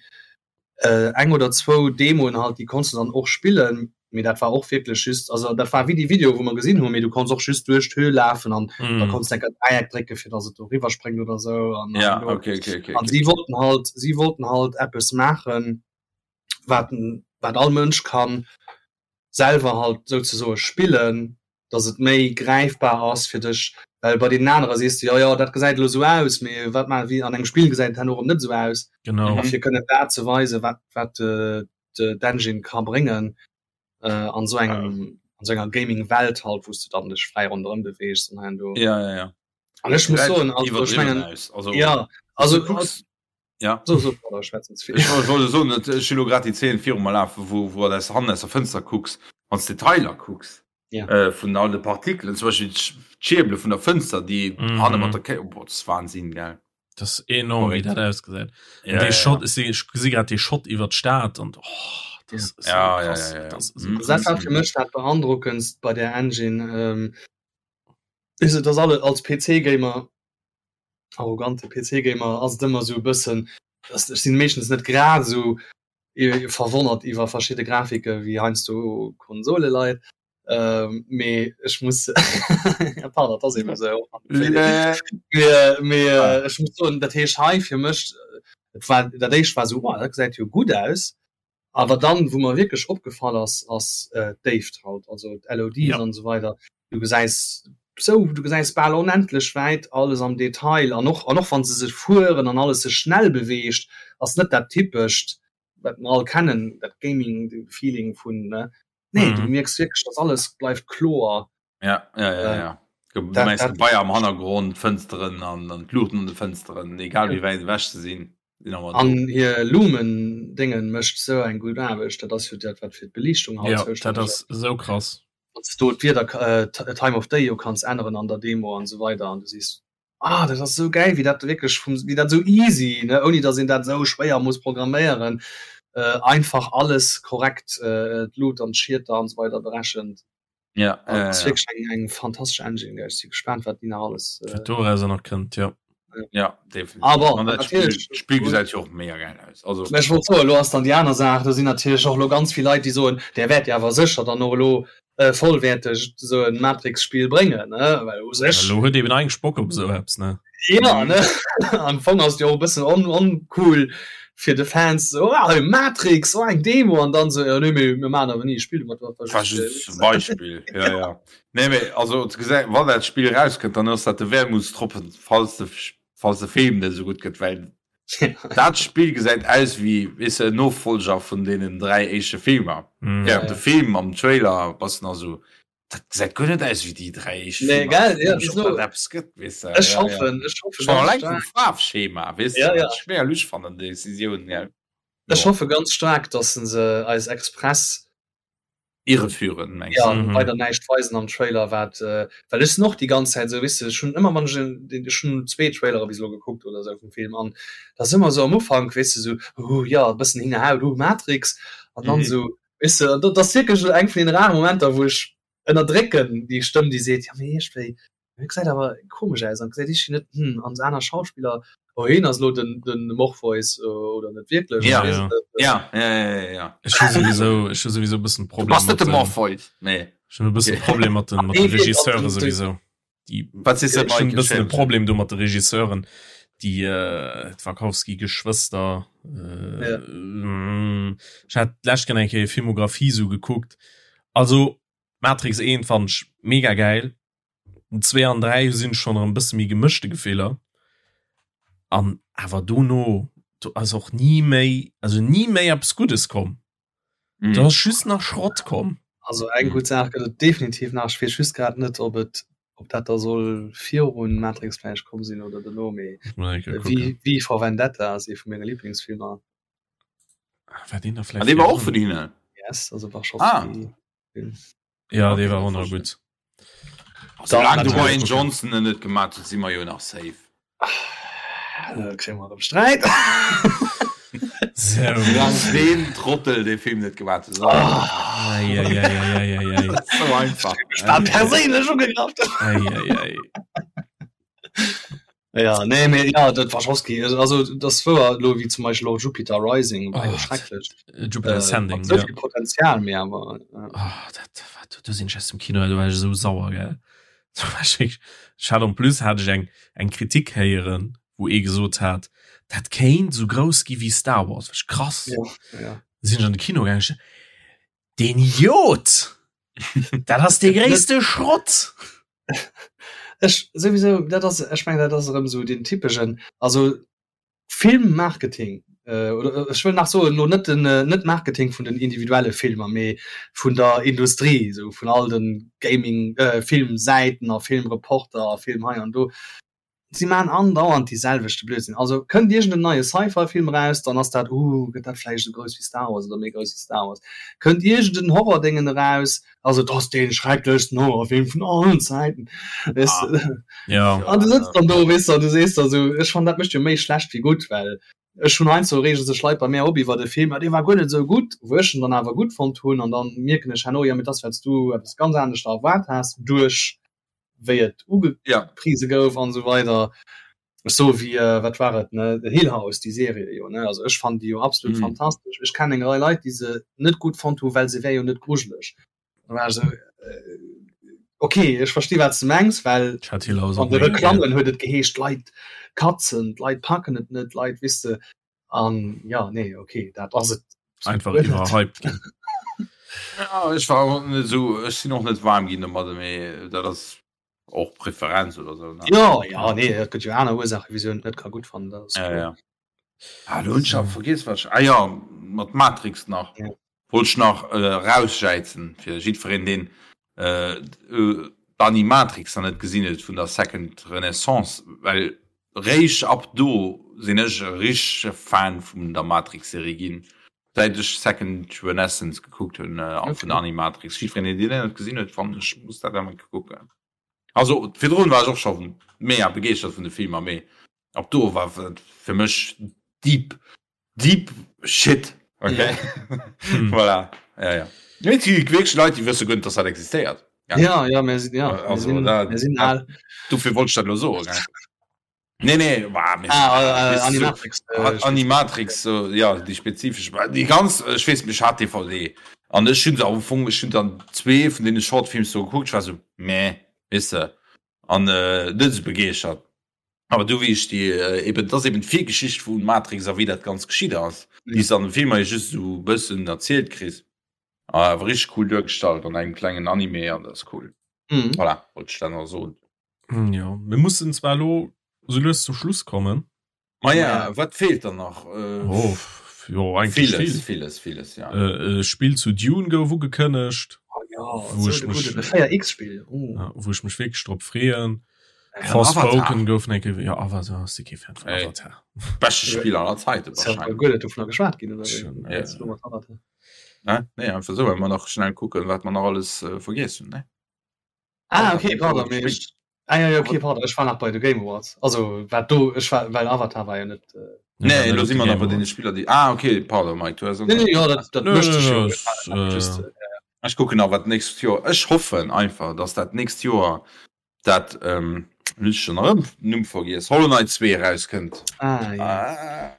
eng oder zwou Demoen halt, déi konns de dann och spillen, mee dat war och wierklech just, also dat war wéi déi Video wou mer gesinn hunn, mee du konns och just duerch d'Höhl lafen an da Mm. konns de enker Dräieck drécke fir datt et do riwwer spréngt oder sou an Ja, an do. okay, okay, okay, An okay. si wollten halt, si wollten halt eppes maachen, wat wat all Mënsch kann selwer halt souzesoe spillen, datt et méi gräifbar ass fir dech, well bei deenen anere sees de, jo jo dat gesäit elo esou aus, mee wat maache wéi an engem Spill gesäit et herno erëm net esou aus. Genau. A fir kënnen dat ze weisen, wat wat d'Engine ka bréngen an esou engem an esou enger Gaming-Welt halt, wou s de dann dech fräi ronderëm beweegs an hei an do. Ja, ja, ja. An ech muss soen, also ech mengen, also, ja, also, du kucks, ja. So, so, pardon, ech schwätzen ze vill. Ech wollt soen, ech hunn elo grad déi Zeen viru mer lafen, wou wou aus hannen aus der Fënster kucks, wann s d'Detailer kucks Ja. äh, vun all de Partikelen, zum Beispill d'Schierbele vun der Fënster, déi Mhm. hanne mat der Ké, boah, dat ass Wahnsinn, gell. Das ist enorm, wéi Verréckt. dat ausgesäit. Ja, An dee ja, Shot, ja. ech si, ech gesi grad dee Shot iwwer d'Stad an oh, das ist so Ja, ja, krass. ja, ja, ja. Das ist so Mhm. Also dat krass. war fir mech dat beandrockendst bei der Engine, ähm, is et, dass alle als PC-Gamer, arrogante PC-Gamer, ass et ëmmer esou e bëssen, dass ech sinn meeschtens net grad esou verwonnert iwwer verschidde Grafike wéi heiansdo Konsoleleit. Ähm, mee ech muss ja, pardon, dat ass eben esou. Mee, mee ah. ech muss soen, dat heescht hei fir mech, et war dat éischt war esou, oh, dat gesäit jo gutt aus. Awer dann, wou mer wierklech opgefall ass, ass äh, d'Déift halt, also d'LODs Ja. an esou weider. Du gesäis sou, du gesäis bal onendlech wäit alles am Detail an och, an och wann se sech fueren an alles sech schnell beweegt, ass net dat typescht, wat mer all kennen, dat Gaming-Feeling vun, ne? Nee, du Mhm. mierks wierklech, dass alles bleift kloer. Ja, ja, ja, Äh, ja. Du dat, meinst dat, Gebaier am Hannergrond, d'Fënsteren an, an d'Luuchten an de Fënsteren, egal wéi wäit ewech se sinn, sinn awer do. an hir Lumen-Déngen mécht sou eng gutt Aarbecht, dat ass jo dat, wat fir d'Beliichtung halt Ja, dat zoustänneg ass. ass esou krass. Wann s du d'Wieder, äh, Time of Day jo kanns änneren an der Demo an esou weider an du sees, ah, dat ass esou gäil, wéi dat wierklech vum, wéi dat esou easy, ne, ouni datt een dat esou schwéier muss programméieren, äh, einfach alles korrekt, äh, d'Lut an d'Schieter an esou weider berechent. Ja, Also, ja, ass ja. wierklech eng, eng fantastesch Engine, gell. Ech si gespaant, wat déi nach alles, äh, Wat dorauser nach kënnt, jo. Ja, definitiv. Aber An dat Spill, natierlech, d'Spill gesäit jo och mega gäil aus. Also, Mä ech wollt soen, elo ass dann déi aner Saach, do sinn natierlech och elo ganz vill Leit, déi soen, där wäert jo awer sécher dann och elo. äh, vollwäerteg sou en Matrix-Spill bréngen, ne? Well u sech. Elo huet eben eigentlech Bock op esou eppes, ne? Ja, ne? Am Fong ass et jo och e bëssen on oncool fir de Fans, sou, oh, hei Matrix, oh eng Demo, an dann sou, jo nee, mee mir maachen awer ni e Spill domat, dat war just. War just e Beispill, ja, ja. Nee, mee also ze gesäit, wann dat Spill erauskënnt, dann ass dat de Wermutstropfen, falls de, falls de Film net esou gutt gëtt, well Dat Spill gesäit aus wéi, weess de, en Nofolger vun deenen 3 éischte Filmer. Mm. Ja, de Film am Trailer bass nach sou, dat gesäit guer net aus wéi déi 3 éischt Nee, Filmer. gell? Ja, Komisch, bis ob lo. dat eppes gëtt, weess de. Ech Ja, ja. hoffen, ech hoffen Schon ganz alleng vum staark. Faarfschema, weess de, Ja, wat ja. ech mega lusch fannen, déi Decisioun, gell. Ech Jo. hoffe ganz staark, dass se se eis express Irreführen, mengs ja, mhm. weider näischt weisen am Trailer wat äh, well ech sinn och déi ganz Zäit sou wisse ech hunn ëmmer wann ech en ech hunn zwee Trailere bis elo gekuckt oder sou vum Film an da ass ëmmer sou am Ufank weess de sou uh ja e bëssen hingerhaut uh Matrix an dann mhm. sou weess de dat ass wierklech eng vun den raren Momenter wou ech ënnerdrécken déi Stëmm déi seet ja mee iergendwéi Hie gesäit awer komesch aus an gesäit iergendwéi net hm an aner Schauspiller oh hien ass elo den den Morpheus oder net wierklech ja ja ja ja ja Ech hu souwisou ech hu souwisou e bëssen Problem bass net de Morpheus nee Ech hunn e bëssen Problem mat den mat de Regisseure souwisou déi Wat sees de Ech hunn e bëssen e Problem do mat de Regisseuren déi äh d'Wachowski Geschwëster äh ja. Ech hat d'lescht Kéier eng Kéier hir Filmografie sou gekuckt also Matrix 1 fand ech mega gäil Den 2 an 3 sinn schon erëm bësse méi gemëschte Gefiller. An awer dono do ass och ni méi also ni méi eppes Guddes komm. Mm. Do ass just nach Schrott komm. Also eng gutt Saach gëtt et definitiv nach. Ech weess just grad net, ob et ob dat da soll virun Matrix vläicht komm sinn oder dono, mee V V for Vendetta ass ee vu menge Liblingsfilmer. War deen da vläicht? Ah, dee war och vun hinnen? Yes, also Wachowski. Ah. Ja, dee war och nach gutt. Soulaang de Ryan Johnson en net gemaat huet, si mer jo nach safe. Da kréie mer erëm Sträit. Soulaang deen Trottel dee Film net gemaat huet. Eieieiei. Sou einfach. Ech war perséinlech ugegraff. Eieiei. Ja, nee, mee ja, dat Wachowski, also das wouer lo wéi zum Beispiel och Jupiter Rising war jo Oh, schrecklech. Jupiter Äh, Ascending, mat sou ja. vill Potenzial, mee awer äh, Oh, dat wat du sinn ech aus dem Kino, du war ech esou sauer gell. Du war ech wierklech- Ech hat en plus hat ech eng eng Kritik héieren, wou ee gesot hat, dat kéint sou grouss gi wéi Star Wars. War ech krass. ja, ja. Sinn ech an de Kino gaangen, ech, Den Idiot! Dat ass dee gréisste Schrott! Ech souwisou, dat ass, ech mengen, dat ass erëm esou deen typeschen, also Filmmarketing, oder ech wëll nach soen, elo net den, net Marketing vun den individuelle Filmer, mee vun der Industrie, esou vun all de Gaming, Filmsäiten a Filmreporter a Film hei an do. Si maachen andauernd dee selwechte Blödsinn. Also kënnt iergend en neie Sci-Fi-Film eraus, dann ass dat, uh, gëtt dat vläicht esou grouss wéi Star Wars oder méi grouss wéi Star Wars. Kënnt iergend en Horror-Déngen eraus, also et ass dee schrecklechsten Horrorfilm vun allen Zäiten, weess de. Ja. An du sëtz dann do, weess de, an du sees der esou, ech fannen, dat mécht jo méi schlecht wéi gutt, well ech hunn heiansdo reege sech Leit bei mär op iwwert e Film, ah, dee war guer net esou gutt, wou ech en dann awer gutt fonnt hunn, an dann mierken ech herno, jo, mee et ass, well s du eppes ganz anescht erwaart has duerch wéi et ugeprise ja. gouf an so weider so wie äh, wat war et ne The Hill House die Serie jo ne also ech fand die jo absolut mm. fantastisch ech kann eng Rei Leit die se net gut fand hu well se wär jo net grujeleg war so äh, okay ech verstehe wat du mengs well an de Reklammen huet et geheescht Leit katzen Leit packen et net Leit wisse an ja nee okay dat ass et einfach iwwerhyped ginn. Ja, ech war och net esou, ech sinn och net waarm ginn domadder, mee dat ass och Preferenz oder sou, ne? Ja, ja, nee, et gëtt jo aner Ursaachen, wisou een et net ka gutt fannen, dat ass Ja, kloer. ja. Ah, lo hunn ech awer vergiess, wat ech, ah jo, mat Matrix nach. Ja. Wollt ech nach erausjäizen fir jiddwereen, deen d'Animatrix nach net gesinn huet vun der Second Renaissance, well réischt ab do sinn ech e richtege Fan vun der Matrix-Serie ginn, säit ech Second Renaissance gekuckt hunn a vun der Animatrix. Jiddwereen, deen déi net gesinn huet, fannen ech, muss dat eng Kéier kucken. Also virdrun war ech och scho mega begeeschtert vun de Filmer, mee ab do war et fir mech deep Deep shit. Okay. Hm. Voilà. Ja, ja. Nee, et gi wierklech Leit, déi wësse guer net, dass dat existéiert. Ja, ja, mir sinn, ja, mir Also, sinn, da- mir sinn al. Dofir wollt ech dat elo soen. gell. Nee, nee, war, mir, ah, äh, Animatrix, so, äh, Animatrix so, ja, déi spezifesch déi ganz ech weess mech hat DVD an ech hunn se am Fong ech hunn dann zwee vun deene Shortfilms do gekuckt, ech war sou meh, weess de an äh, net sou begeeschtert. Awer du wéi ech déi äh, eben dat ass eben d'Virgeschicht vu Matrix a wéi dat ganz geschitt ass, déi s an dem Film hei just sou bëssen erzielt kriss. Awer richteg cool duergestallt an engem klengen Anime an dat ass cool. Mhm. Voilà, wollt ech dat nach soen. Hm, ja, mir mussen zwar lo so lues zum Schluss kommen. Ma ja, wat feelt dann nach? Äh, oh, jo, eigentlich vieles, viel. vieles, vieles, ja. Äh, äh, Spiel zu Dune gouf ugekënnegt. Oh, ja, wo ich mich, 4X-Spiel. Oh. Ja, wo ich mich wirklich drop freeën. Ja, Forspoken gouf enke ja Avatar ass kee Fan vun Avatar. Beschte Spiel aller Zeiten wahrscheinlich. Dovun geschwat ginn oder ja. Ne? Nee, einfach so, well mer nach schnell kucken, wat mer nach alles äh, vergiess hunn, ne? Ah, okay, pardon, mee ech, ah, ja, ja, okay, pardon, ech war nach bei de Game Awards. Also, wat do, ech war, well Avatar war jo net. Äh, nee, lo si mer nach bei deene Spiller, déi. Ah, okay, pardon, Mike, du has. Nee, nee, ja, dat, dat mécht sech jo. Äh, ech kucken nach, wat d'nächst Joer. Ech hoffen einfach, dass dat nächst Joer dat, ähm, hunn ech schon erëm den Numm vergiess, Hollow Knight 2 erauskënnt. Ah, ja. Ah.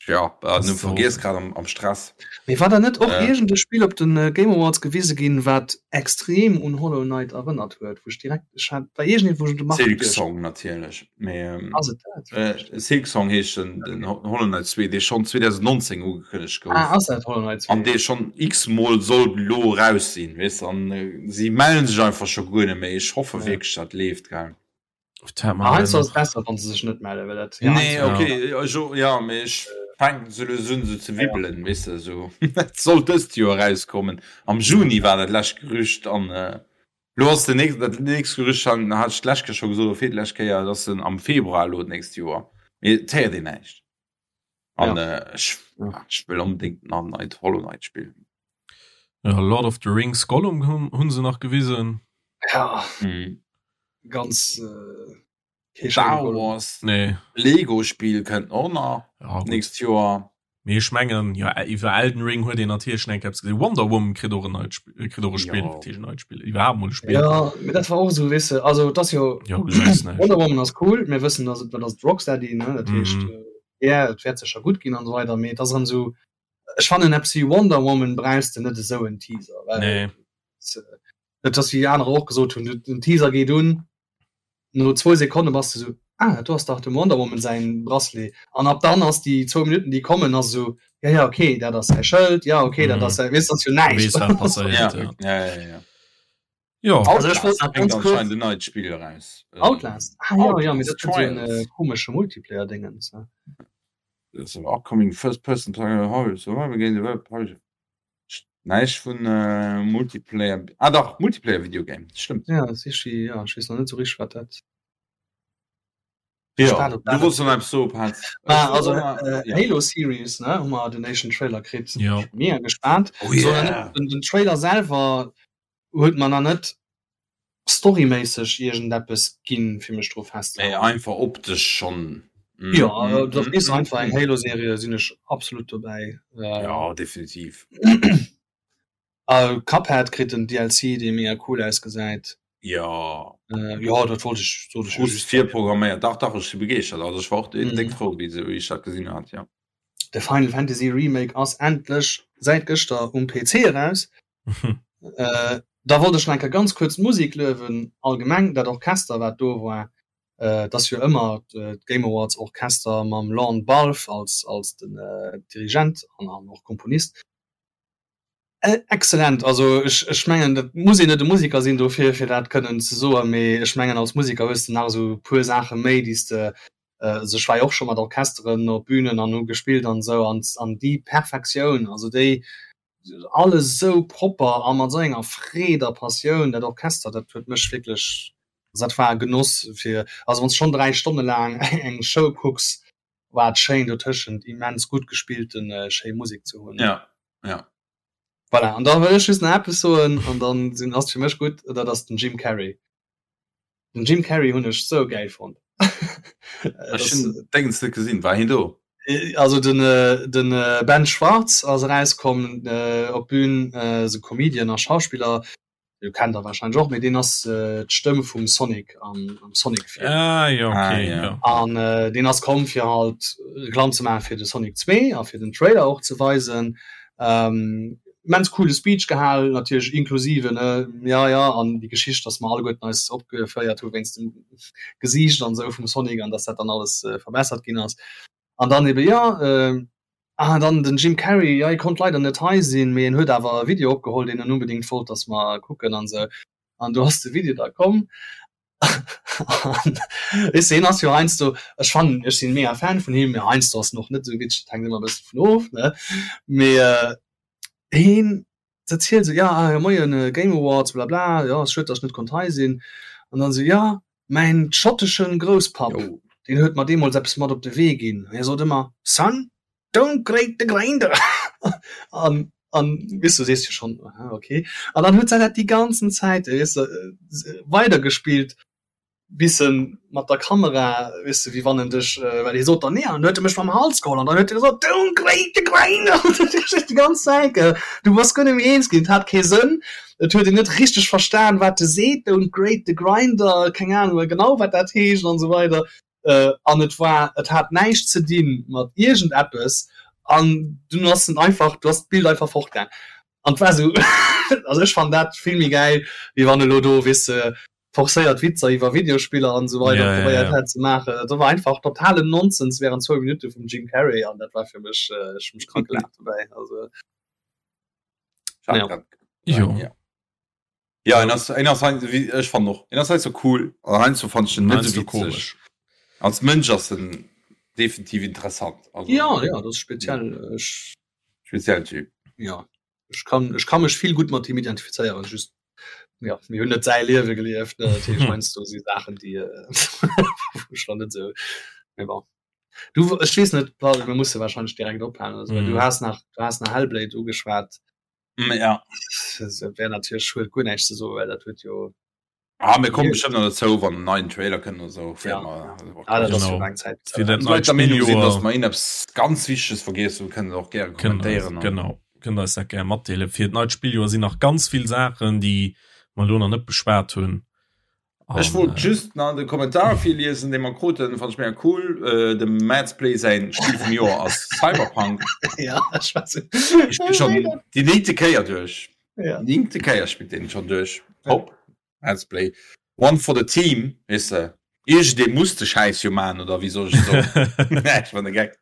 Ja, äh, nu vergiess grad am, am Stress. Mee war da net och äh. iergend e Spill op den äh, Game Awards gewise ginn, wat extrem un Hollow Knight erënnert huet, wou ech direkt ech hat war iergendeen, wou ech un de Marc Silk Song natierlech. Mee ähm, ass et dat? Äh, Silk Song heescht den, den Hollow Knight 2, dee schonn 2019 ugekënnegt gouf. Ah, ass dat Hollow Knight 2? An dee schonn x-mol soll lo raus sinn, weess an äh, si mellen sech einfach scho guer net méi. Ech hoffe ja. wierklech, dat leeft, gell. Heiansdo ass et besser wann se sech net mellen, well dat Nee, okay, jo, ja, mee ech fänken sou lues un sou ze wibbelen, weess de, sou et soll dëst Joer erauskommen. Am Juni war dat lescht Gerücht an elo ass den nächst, dat nächst Gerücht han hat ech d'lescht Kéier scho gesot oder virlescht Kéier, et ass en am Februar elo d'nächst Joer, mee et héiert een näischt an ech ech wëll onbedéngt nach en neit Hollow Knight spillen. Ja, Lord of the Rings Gollum hunn hunn se nach gewisen. Ja. Mhm. Ganz äh, Star Wars nee. Lego Spiel kënnt och nach ja, nächst Joer. Mee ech mengen ja iwwer Elden Ring huet een natierlech eng Kéier gesinn. Wonder Woman kritt och en neit Spiel, äh, kritt och e Spiel, Ja. natierlech en neit Spiel, iwwerhaapt mol e Spiel. Ja, mee dat war och esou, weess de, also et ass jo Ja, du gesäis näischt. Wonder Woman ass cool, mir wëssen, dass et, dat ass Rocksteady, ne, dat heescht, Mhm. äh, ja, et wäert sécher gutt ginn an esou weider, mee et ass erëm esou, Ech fannen eppes wéi Wonder Woman brauchs de net esou en Teaser, well Nee. et ass wéi anerer och gesot hunn, den Teaser geet un, no zwou Sekonne bass de sou, ah dat do ass dach dem Wonder Woman säin Bracelet an ab dann ass déi zwou Minutten déi kommen ass esou, ja ja okay dat ass säi Schëld, ja okay dat Mhm. ass säi, weess ass jo Du näischt. weess wat passéiert, Ja, ja. ja, ja, ja. Jo. Also ech wollt Outlast nach bréngt ganz kurz anscheinend en neit Spill eraus. Outlast, ah jo, jo, mee Outlast dat huet esou en Trials. komesche Multiplayer-Dingens, ne? Upcoming first person horror survival game developed by Näischt vun Multiplayer, ah dach, Multiplayer Video Game, stëmmt. Ja, dat ass ja, ech weess nach net esou richteg wat dat. Ja, du wollts nach eppes soen, Pat. Ah, also Halo Series, ne, hu mer den éischten Trailer kritt. Jo. Mega gespaant. Oh yeah. Den, den Trailer selwer huet mer nach net storyméisseg iergendeppes ginn, fir mech dru Mee festzehalen. einfach optesch schonn. Jo, dat ass einfach eng Halo-Serie, sinn ech absolut dobäi. Jo, definitiv. A Cuphead kritt en DLC, dee mega cool ausgesäit. Jo. Jo, dat wollt ech, sollt ech jo Just just. virprogramméiert. Dach, dach, ech si begeeschtert. Also ech war och déck frou, wéi ech dat gesinn hat, jo. De Final Fantasy Remake ass endlech säit gëschter um PC eraus. Äh, da wollt ech nach eng Kéier ganz kuerz d'Musek luewen, allgemeng dat Orchester wat do war, äh, et ass jo ëmmer d'Game Awards Orchester mam Lorne Balfe als, als den Dirigent an, an och Komponist. Excellent, also ech, ech mengen dat muss een net e Musiker sinn dofir fir dat kënnen ze soen, mee ech mengen als Musiker hues de nach esou e puer Saache méi déi s de, also ech war jo och scho mat Orchesteren op Bünen an hu gespillt an esou an, an déi Perfektioun, also déi alles esou propper a mat esou enger Freed a Passioun, dat Orchester, dat huet mech wierklech, also dat war e Genoss fir, also wann s de schonn 3 Stonne laang eng Show kucks, war et schéin dotëschent immens gutt gespillten schéi Musek ze hunn. Ja, ja. Voilà, an da wëll ech just nach eppes soen an dann sinn, ass et fir mech gutt, dat ass den Jim Carrey. Den Jim Carrey hunn ech sou gäil fonnt. Ech hunn Déngens net gesinn, war hien do? Also den den Ben Schwartz ass erauskomm op d'Bün, esou Comedian a Schauspiller. Jo kennt der wahrscheinlech och, mee deen ass äh, d'Stëmm vum Sonic am, am Sonic Film. Ah, ja, okay, ah, ja. ja. An äh, deen ass komm fir halt Reklamm ze maachen fir de Sonic 2 a fir den Trailer och ze weisen. Ähm, immens coole Speech gehal, natierlech inklusive ne, ja ja an déi Geschicht, dass mer alleguerten eis opgeféiert hu wéinst dem Gesiicht an esou vum Sonic an dass dat dann alles äh, verbessert ginn ass. An dann ebe ja, äh, ah, dann den Jim Carrey, ja, hie konnt leider net hei sinn, mee en huet awer e Video opgeholl, deen en unbedingt wollt, dass mer kucken an esou. An do ass de Video da komm. An weess de, hien ass jo heiansdo, ech fannen, ech sinn mega Fan vun him, mee heiansdo ass en och net esou witzeg, dat hänkt ëmmer e bëssen dovun of, ne? Mee äh, hien erzielt esou, ja, ah, moien, Game Awards, bla bla, jo, ass schued, dass ech net konnt hei sinn. An dann esou, ja, Mäin schotteschen Grousspapp, deen huet mer deemools eppes mat op de Wee ginn. Hie sot ëmmer, Son, don't grate the grinder! An, an, weess du, sees jo schonn, aha, okay. An dann huet se dat déi ganzen Zäit, weess de, weidergespillt, bis en mat der Kamera, weess de, wéi wann en dech, well hie sot dann, nee, an dann huet e mech mam Hals geholl an dann huet e gesot, Don't grate the grinder! Déi ganz Zäit, gell. Du bass guer net méi eens ginn, et hat kee Sënn. Et huet een net richteg verstan wat e seet, don't grate the grinder, keng Ahnung genau wat dat heescht an esou weider. An et war, et hat näischt ze di mat iergend eppes an dunn ass en einfach, du ass d'Bild einfach fortgaang an et war esou, also ech fannen dat vill méi gäil wéi wann elo do, weess de, forcéiert Witzer iwwer Videospiller an esou weider probéiert hätt ze maachen. Dat war einfach totalen Nonsens während zwou Minutte vum Jim Carrey an dat war fir mech, ech hu mech krank gelaacht dobäi, also. Ja. Ja. Ja, en ass, en ass wie ech fan noch en ass halt so cool an heiansdo fand ich den net so witzeg. Als Mënsch ass en definitiv interessant. Also, ja ja das speziell ech speziellen Typ. Ja ech kann ech kann mech vill gut mat him identifizéieren just ja mir hunn net säi Liewe gelieft ne natierlech heiansdo si Saachen déi äh, schon net sou mee bon. Du ech weess net Paul, mir musse wahrscheinlech direkt ophalen oder sou, well du has nach du has nach Hellblade ugeschwat. Mm, ja. Dat wär natierlech huet guer näischt ze soen, well dat huet jo Ah, mir kommen bestimmt noch dozou, wann en neien Trailer kënnt oder sou. Ja. Ah, dat ass jo laang Zäit. Fir dat neit Leit der Meenung sinn, dass Spilljoer mer eppes ganz Wichteges vergiess hunn, kënnt och gäre kënnt kommentéieren. Genau, kënnt eis dat gär matdeelen. Fir dat neit Spilljoer sinn nach ganz vill Saachen, déi mer elo nach net beschwat hunn. Ech wollt just nach de Kommentar virliesen, dee mer kruten, fand ech mega cool. Äh, dem Madsplay säin Spill vum Joer ass Cyberpunk. Ja, ech war so. Ech spill schon déi néngte Kéier duerch. Ja. Néngte Kéier spillt deen schon duerch. Hopp, Madsplay. One for the team, weess de. Iergendee muss de Schäiss jo man, oder wéi soll ech soen? Nee, ech war de Geck.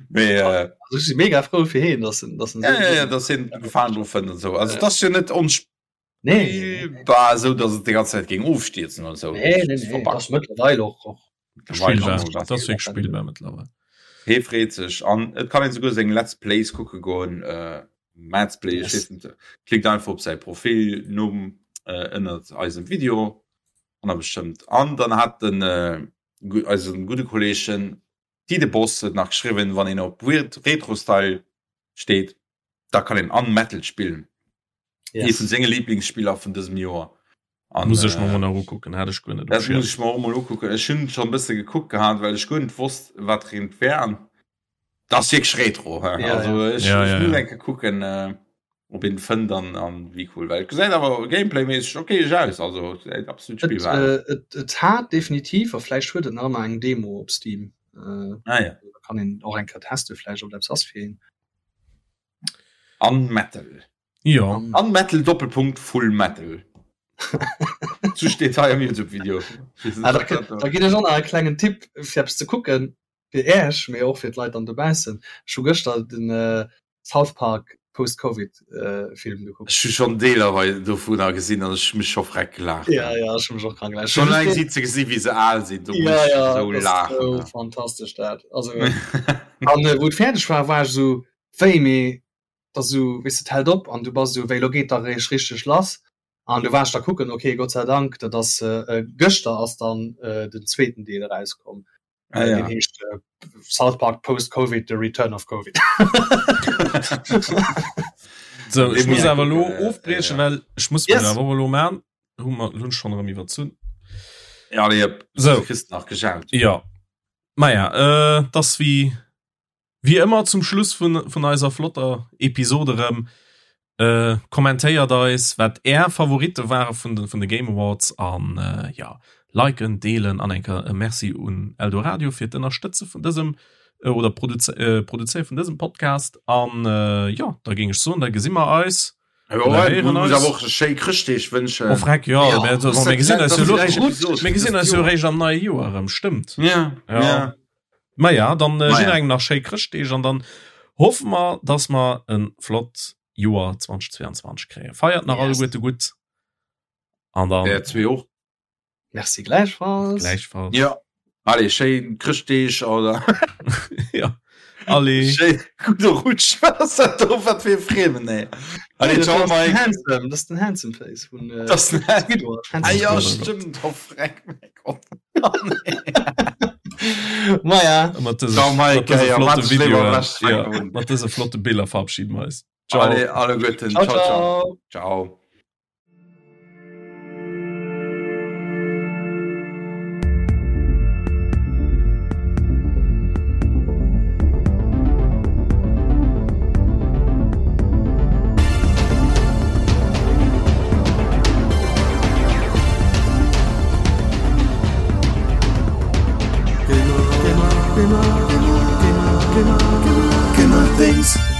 Mee, äh, Also ech si mega frou fir heen, dass en, dass en ja, ja, ja, dass hien Gefalen dru fënnt an sou. Also, et ass jo net ons. Nee, war esou dass et déi ganz Zäit géing ofstierzen oder sou. Nee, nee, nee, das mëttlerweil och och Spillbar, dat ass wierklech spillbar mëttlerweil. Hee freet sech an et kann een souguer seng Let's Plays kucke goen, äh, Mads Play, ech weess net, klickt einfach op säi Profilnumm äh, ënnert eisem Video an da bestëmmt. An dann hat den äh, eisen gudde Kolleegen Dide Boss et nach geschriwwen, wann een op Weird Retro Style steet, da kann een Unmetal spillen. Yes. Ee vun senge Lieblingsspiller vun dësem Joer. An, muss ech mer äh, mol ukucken, hat ech guer net. Dat muss ech mer och mol ukucken. Ech hunn schon e bësse gekuckt gehat, well ech guer net wosst, wat eent wär. An dat ass wierklech Retro. He? Ja, also ja. ech, ja, ech ja, muss ja. enke kucken, äh, ob een fënnt an, an wéi cool. Well et gesäit awer Gameplay-méisseg okay aus. Also et absolut Et, spielbar. äh, et, et hat definitiv, a vläicht huet et nach ëmmer eng Demo op Steam. Äh, Ah, ja. da kann een och eng Kéier teste vläicht, ob dat eppes ass fir een. An Metal. Jo. An Metal Doppelpunkt Full Metal. Sou steet hei am YouTube Video. Ah, da, da ginn ech och nach e klengen Tipp fir eppes ze kucken, fir Äech, mee och fir d'Leit dann dobaussen. Ech hu gëschter den äh, South Park Post-Covid äh, Film gekuckt. Ech hu schonn Deeler hei dovunner gesinn an ech hu mech scho freck gelaacht. Ja, ja, ech hu mech och krank gelaacht. Schon eleng si ze gesi wéi se al sinn, do ja, muss ja, ech esou das ist laachen. so fantastesch dat. Also, an äh, wou et fäerdeg war, war ech esou, wéi, mee da sou, weess de, et hält op an du bass esou, wéi, lo geet da réischt richteg lass. An du war ech da kucken, okay, Gott sei Dank, dat ass äh, gëschter ass dann äh, den zweeten Deel erauskomm. Ah, ja. Deen heescht äh, South Park Post-Covid, The Return of Covid. So, ech muss awer lo äh, ofbriechen, ja. well ech muss Yes. yes. awer lo man. Hu mer hunn schon erëm iwwerzunn. Ja, nee, So. kriss nach gejaut. Ja. Maja, äh, das wie wie ëmmer zum Schluss vun, vun eiser flotter Episode erëm. Äh, kommentéiert eis, wat är Favoritte ware vun de, vun de Game Awards an äh, ja, liken, deelen an enker e Merci un Eldoradio fir d'Ënnerstëtze vun dësem äh, oder Produze äh, Produzéiere vun dësem Podcast. An äh, ja, da géing ech soen, da gesi mer eis. Ja, ja, muss awer och schéi Chrëschtdeeg wënschen. Oh, freck, ja, ja. Mir, also, mir gesinn eis jo lo, mir gesinn eis jo réischt am neie Joer erëm, stëmmt. Ja, ja. ja. Ma ja, dann äh, jidderengem nach schéi Chrëschtdeeg an dann hoffe mer, dass mer en flott Joer 2022 kréien. Feiert nach yes. alleguerte gutt. An dann. Der zwee och. Merci gleichfalls. Gleichfalls. Ja. Allez, schéin Chrëschtdeeg oder. ja. Allez. Schéin gudde Rutsch. Wat ass dat do? Wat fir e Friemen, ey. Allez, ciao, Mike. Handsome, das ist den Handsome Face vun äh, das ist den Squidward. Ah, ja, stimmt. Oh, freck, mein Gott. Oh, nee. Maja. Mat dëse, ciao, Mike. Mat dëse flotte Videoen. Ja, mat dëse flotte Biller verabschieden wir eis. Ciao. Allez, alle Guten. Ciao, ciao. Ciao. ciao. Gamer, gamer, gamer, gamer, gamer, gamer, gamer things.